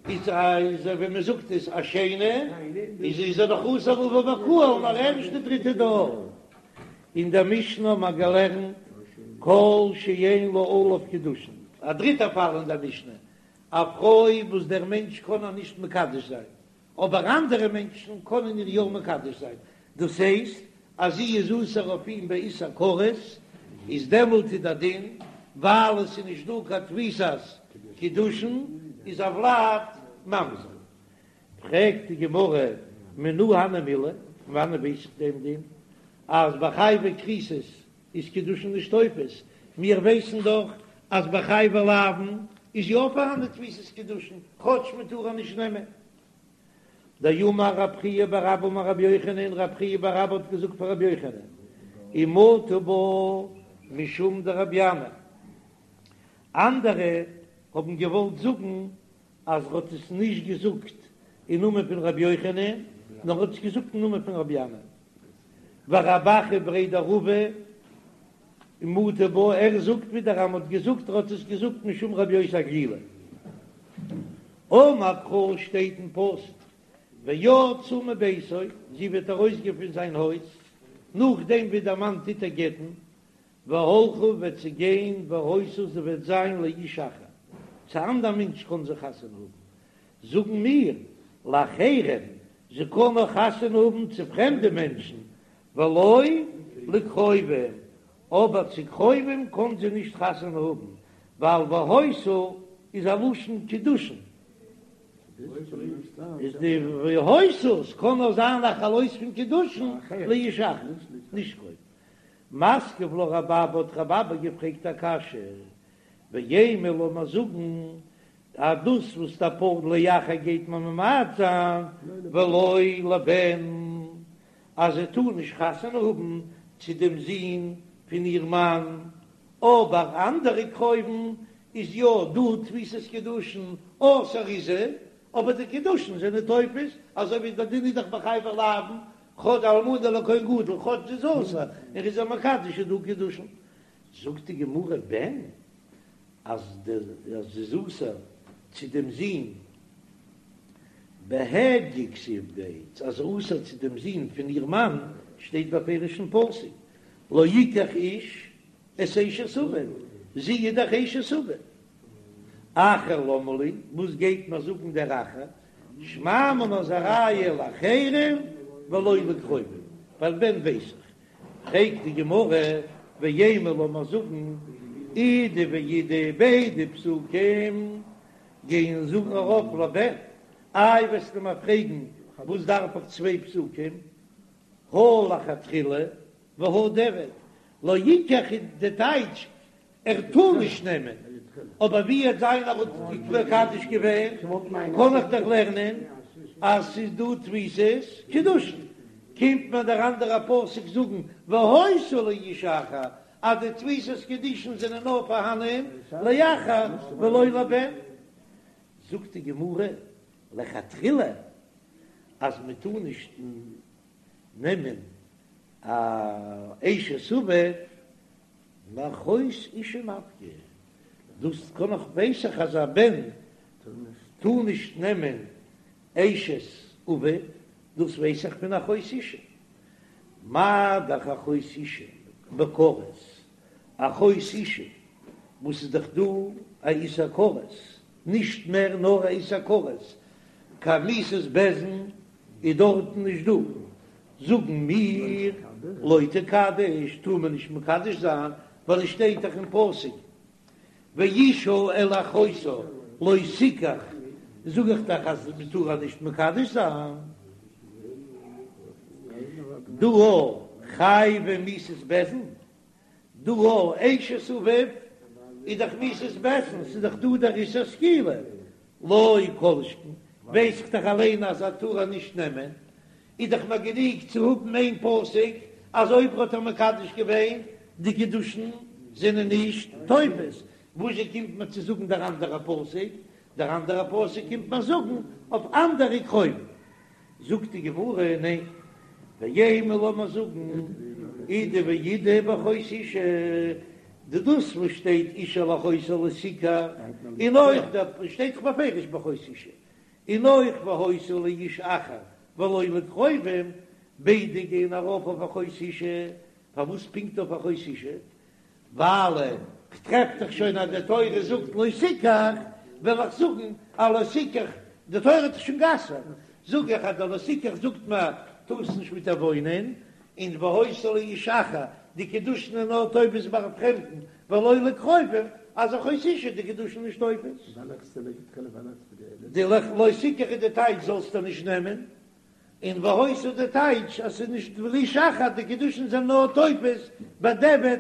איז איז ווי מען זאגט עס א שני, איז איז ער דאך אסור לבוא בקהל נאר ערשט די דריטע דור. אין דער משנה האט מען געלערנט כל שאין לה עליו קידושין, א דריטע פאל אין דער משנה, א פרוי וואס דער מענטש קען איר נישט מקדש זיין, אבער אנדערע מענטשן קענען איר יא מקדש זיין, דאס הייסט אז זי איז אסור אויף אים באיסור כרת, איז דעמאלט איז דער דין, ווייל עס איז נישט דא קיין תפיסת קידושין, איז הולד ממזר. פרעגט די גמרא, מנא הני מילי, פון וואנען ווייס איך דעם דין אז ביי חייבי כריתות איז קידושין נישט תופס, מיר ווייסן דאך אז ביי חייבי לאוין איז יא פארהאן די תפיסת קידושין, כאטש מען טאר איר נישט נעמען. דאמר רב חייא בר אבא אמר רבי יוחנן, רב חייא בר אבא האט געזאגט פאר רבי יוחנן, ומטו בה משום דרבי ינאי, אנדערע האבן געוואלט זאגן אז ער האט עס נישט געזאגט אין נאמען פון רבי יוחנן, נאר ער האט עס געזאגט אין נאמען פון רבי ינאי. ורב אחא בריה דרבא מטי בה, ער זאגט ווידער אז מען האט געזאגט ער האט עס געזאגט משום רבי יוסי הגלילי. אמר קרא שטייט אין פסוק ויצאה מביתו, זי וועט ארויסגיין פון זיין הויז, נאכדעם ווי דער מאן טוט איר גט'ן, והלכה וועט זי גיין והיתה זי וועט זיין לאיש אחר, צו אנדער מענטש קען זי חתונה האבן, זאגן מיר, לאחרים, זי קען נאר חתונה האבן צו פרעמדע מענטשן, ולא לקרובים, אבער צו קרובים קען זי נישט חתונה האבן, ווייל והיתה איז א לשון קידושין, איז די והיתה ס'קען נאר זיין א חלות פון קידושין לאיש אחר, נישט קרובים. מתקיף לה רב אבא האט רב אבא געפרעגט א קשיא, ואימא לאמיר זאגן אז דאס וואס דער פסוק לאחר גייט מען ממעט זיין ולא לבן אז זי טאר נישט חתונה האבן צו דעם זון פון איר מאן, אבער אנדערע קרובים איז יא דא תפיסת קידושין אסור איז זי, אבער די קידושין זענען תופס, אזוי ווי דער דין איז דאך ביי חייבי לאוין, כאטש אלמנה לכהן גדול, כאטש זי איז אסור, און ער איז איר מקדש איז דא קידושין. זאגט די גמרא בן אז זי איז אסור צו דעם זון בהדיא כתיב ביה, אז זי איז אסור צו דעם זון פון איר מאן שטייט בפירוש אין פסוק לא יקח איש את אשת אביו, זי איז דאך אשת אביו. אחר למה לי, וואס גייט מיר זאגן דער אחר, שמע מינה איז א ראיה לאחרים ולא לקרובים, ווייל בן ווייס איך. פרעגט די גמרא, ואימא לאמיר זאגן, אידי ואידי ביידע פסוקים גייען זאגן ארויף לבן, איי וועסטו מיר פרעגן וואס דארף איך צוויי פסוקים, הא לכתחילה והא דיעבד, לא יקח איז די טייטש ער טאר נישט נעמען, אבער ווי וועט זיין ער האט מקדש געווען, קען איך דאך לערנען אז ס'איז דא תפיסת קידושין, קומט מיר דער אנדערע פסוק זאגן והיתה לאיש אחר אז די תפיסת קידושין זענען נאר פארהאנען לאחר ולא לבן, זאגט די גמרא לכתחילה אז מען טאר נישט נעמען א אשת אביו מאחות אשה נפקא, דאס קען איך ווייס איך אז א בן טאר נישט נעמען אשת אביו. דאס ווייס איך פון אחות אשה. מה דאך אחות אשה בכרת, אחות אשה וואס איז דאך דא א איסור כרת, נישט מער נאר א איסור כרת, קיין מיתת בית דין איז דארטן נישט דא, זאגן מיר לא תקדש טאר מען נישט מקדש זיין, ווייל עס שטייט דאך אין פסוק ואשה אל אחותה לא תקח, זאג איך דאך אז מען טאר איר נישט מקדש זיין. דא חייבי מיתת בית דין, דא אשת אביו איז דאך מיתת בית דין, ס'איז דאך דא דער איסור סקילה, לא כל שכן, ווייס איך דאך אליין אז ער טאר איר נישט נעמען, איז דאך מיר גענוג צו האבן איין פסוק אז אויב ער האט איר מקדש געווען די קידושין זענען נישט תופס, וואזשע קומט מיר צו זאגן דער אנדערע פסוק? דער אנדערע פסוק קומט מיר זאגן אויף אנדערע קרובים. זאגט די גמרא, ניין, ואימא לאמיר זאגן אידי ואידי באחות אשה, די דאס וואס שטייט אשה אל אחותה לא תקח, און אויך דער שטייט דאך בפירוש באחות אשה, און אויך והיתה לאיש אחר ולא לקרובים, ביידע גייען ארויף אויף אחות אשה, פארוואס פונקט אויף אחות אשה? ווייל כ'טרעף דאך שוין אז די תורה זאגט לא תקח, וועל איך זאגן אז לא תקח, די תורה האט דאך שוין גע'אסר'ט, זאג איך אז די לא תקח זאגט מיר טארסט נישט מיט איר וואוינען, און והיתה לאיש אחר, די קידושין איז נאר תופס ביי א פרעמדן, ולא לקרובים, אז אחות אשה די קידושין נישט תופס. די לא תקח איז די טייטש זאלסטו נישט נעמען, און והיתה די טייטש אז ס'איז נישט לאיש אחר, די קידושין זענען נאר תופס בדיעבד,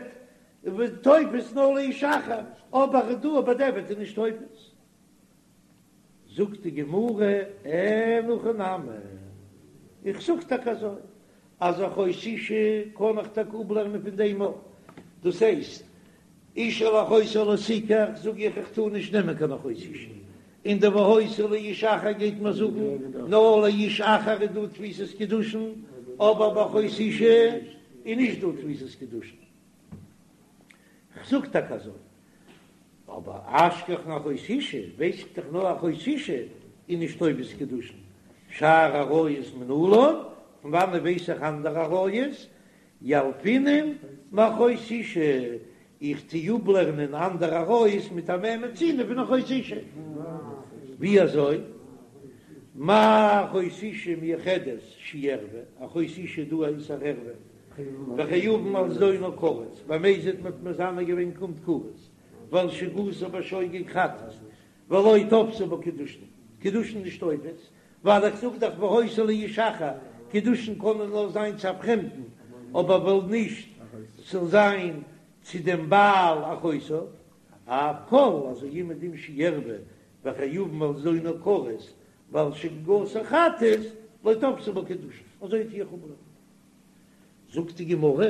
תופס נאר לאיש אחר, אבער דא בדיעבד איז נישט תופס. זאגט די גמרא, אין הכי נמי, איך זאג טאקע אזוי, אז אחות אשה קען איך טאקע אפלערנען פון דעם אויך, דאס הייסט, אשה אל אחותה לא תקח, זאג איך איך טאר נישט נעמען קיין אחות אשה, און די והיתה לאיש אחר גייט מיר זאגן נאר לאיש אחר איז דא תפיסת קידושין, אבער ביי אחות אשה איז נישט דא תפיסת קידושין. כ'זאג טאקע אזוי, אבער אשכחן אחות אשה, ווייס איך דאך נאר אחות אשה איז נישט תופס קידושין, שאר עריות מנלן, פון וואנעט ווייס איך אנדערע עריות? ילפינן מאחות אשה, איך טו אפלערנען אנדערע עריות מיט א מה מצינו פון אחות אשה. ווי אזוי? מה אחות אשה מיוחדת שהיא ערוה, אחות אשה דא א איסור ערוה, וחייבין על זדונה כרת, במזיד מ'האט מזנה געווען קומט כרת, ועל שגגתה בשוגג חטאת, ולא תפסי בה קידושין, קידושין נישט תופס, ווייל איך זאג דאך והיתה לאיש אחר, קידושין קענען נאר זיין צו א פרעמדן, אבער וועל נישט ס'זאל זיין צו דעם בעל אחותה, אף כל אזוי אומעדום שהיא ערוה וחייבין על זדונה כרת, ועל שגגתה חטאת, לא תפסי בה קידושין, אזוי טו איך אפלערנען. זאגט די גמרא,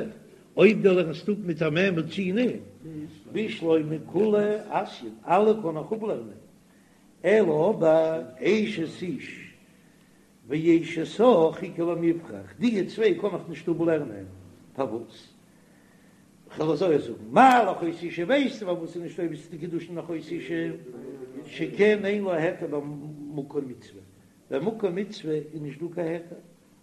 אויב דו לערנסט אפ מיט א מה מצינו, בשלמא כולהו אתיין, אלע קען איך אפלערנען, אלא אבער אשת איש ואשת אח איכא למיפרך, די צוויי קען איך נישט אפלערנען, פארוואס? כ'וועל אזוי זאגן, מה לאחות אשה ווייסטו פארוואס ס'איז נישט תופס די קידושין אחות אשה, שכן אין לה היתר במקום מצוה, במקום מצוה איז נישט דא קיין היתר,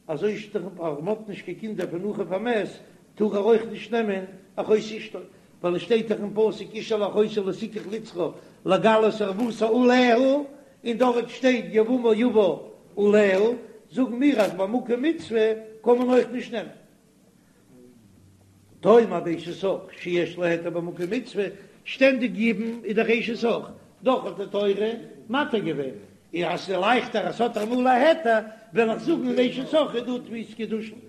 אזוי שטארק אז מ'האט נישט קיין קינדער פון אחיו המת, טאר ער אויך נישט נעמען אחות אשתו, ווייל עס שטייט דאך אין פסוק אשה אל אחותה לא תקח לצרור לגלות ערותה עליה, און דארט שטייט יבמה יבא עליה, זאגן מיר אז במקום מצוה קען מען אויך נישט נעמען. תאמר באשת אח שיש לה היתר במקום מצוה, שטענדיג יבום איז דאך אשת אח, דאך האט די תורה מתיר געווען, און אז ס'איז לייכטער אז ס'האט אמאל א היתר, וועל איך זאגן אין אשת אח איז דא תפיסת קידושין.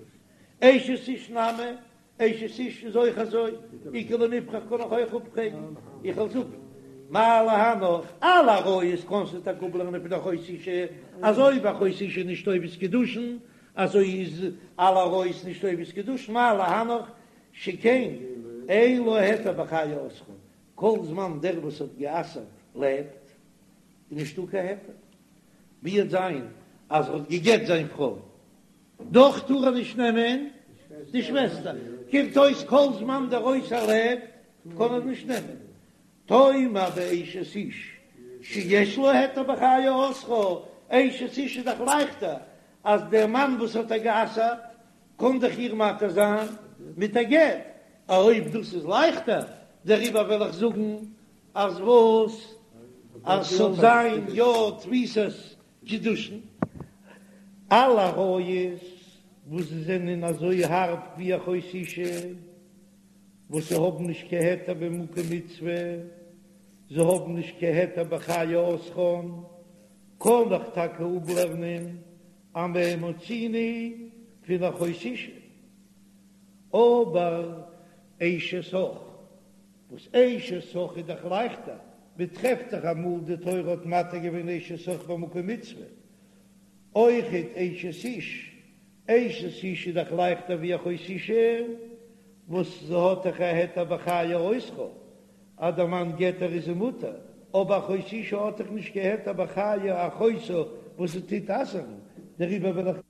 אשת איש נמי, אשת איש איז אויך אזוי, איכא למיפרך קען איך אויך אפפרעגן, איך וועל זאגן מה להנך, אלע עריות קענסטו טאקע אפלערנען פון אחות אשה, אזוי ווי אחות אשה איז נישט תופס קידושין, אזוי איז אלע עריות נישט תופס קידושין, מה להנך שכן אין לה היתר בחיי אוסרה, כל זמן דער וואס האט גע'אסר'ט לעבט, איז נישטא קיין היתר. ווי וועט זיין אז ער האט גע'גט זיין פרוי, דאך טאר ער נישט נעמען די שוועסטער, קומט אויס כל זמן דער אוסר לעבט קען ער נישט נעמען. תאמר באשת איש שיש לה היתר בחיי אוסרה, אשת איש איז דאך לייכטער. אז דער מאן וואס האט איר גע'אסר'ט קען דאך איר מתיר זיין מיט א גט, אויב דאס איז לייכטער, דעריבער וועל איך זאגן אז וואס? אז ס'זאל זיין יא תפיסת קידושין. אלע עריות וואס זענען אזוי הארב ווי אחות אשה, וואס זיי האבן נישט קיין היתר במקום מצוה, זיי האבן נישט קיין היתר בחיי אוסרן, קען איך טאקע אפלערנען אז מה מצינו פון אחות אשה, אבער אשת אח, וואס אשת אח איז דאך לייכטער, מען טרעפט דאך אמאל די תורה האט מתיר געווען אשת אח במקום מצוה, אויכעט אשת איש, אשת איש איז דאך לייכטער ווי אחות אשה, וואס זי האט דאך א היתר בחיי אוסרה, אז דער מאן גט איר איז זי מותר, אבער אחות אשה האט דאך נישט קיין היתר בחיי אחותה וואס זי טוט אסר'ן, דעריבער וועל איך.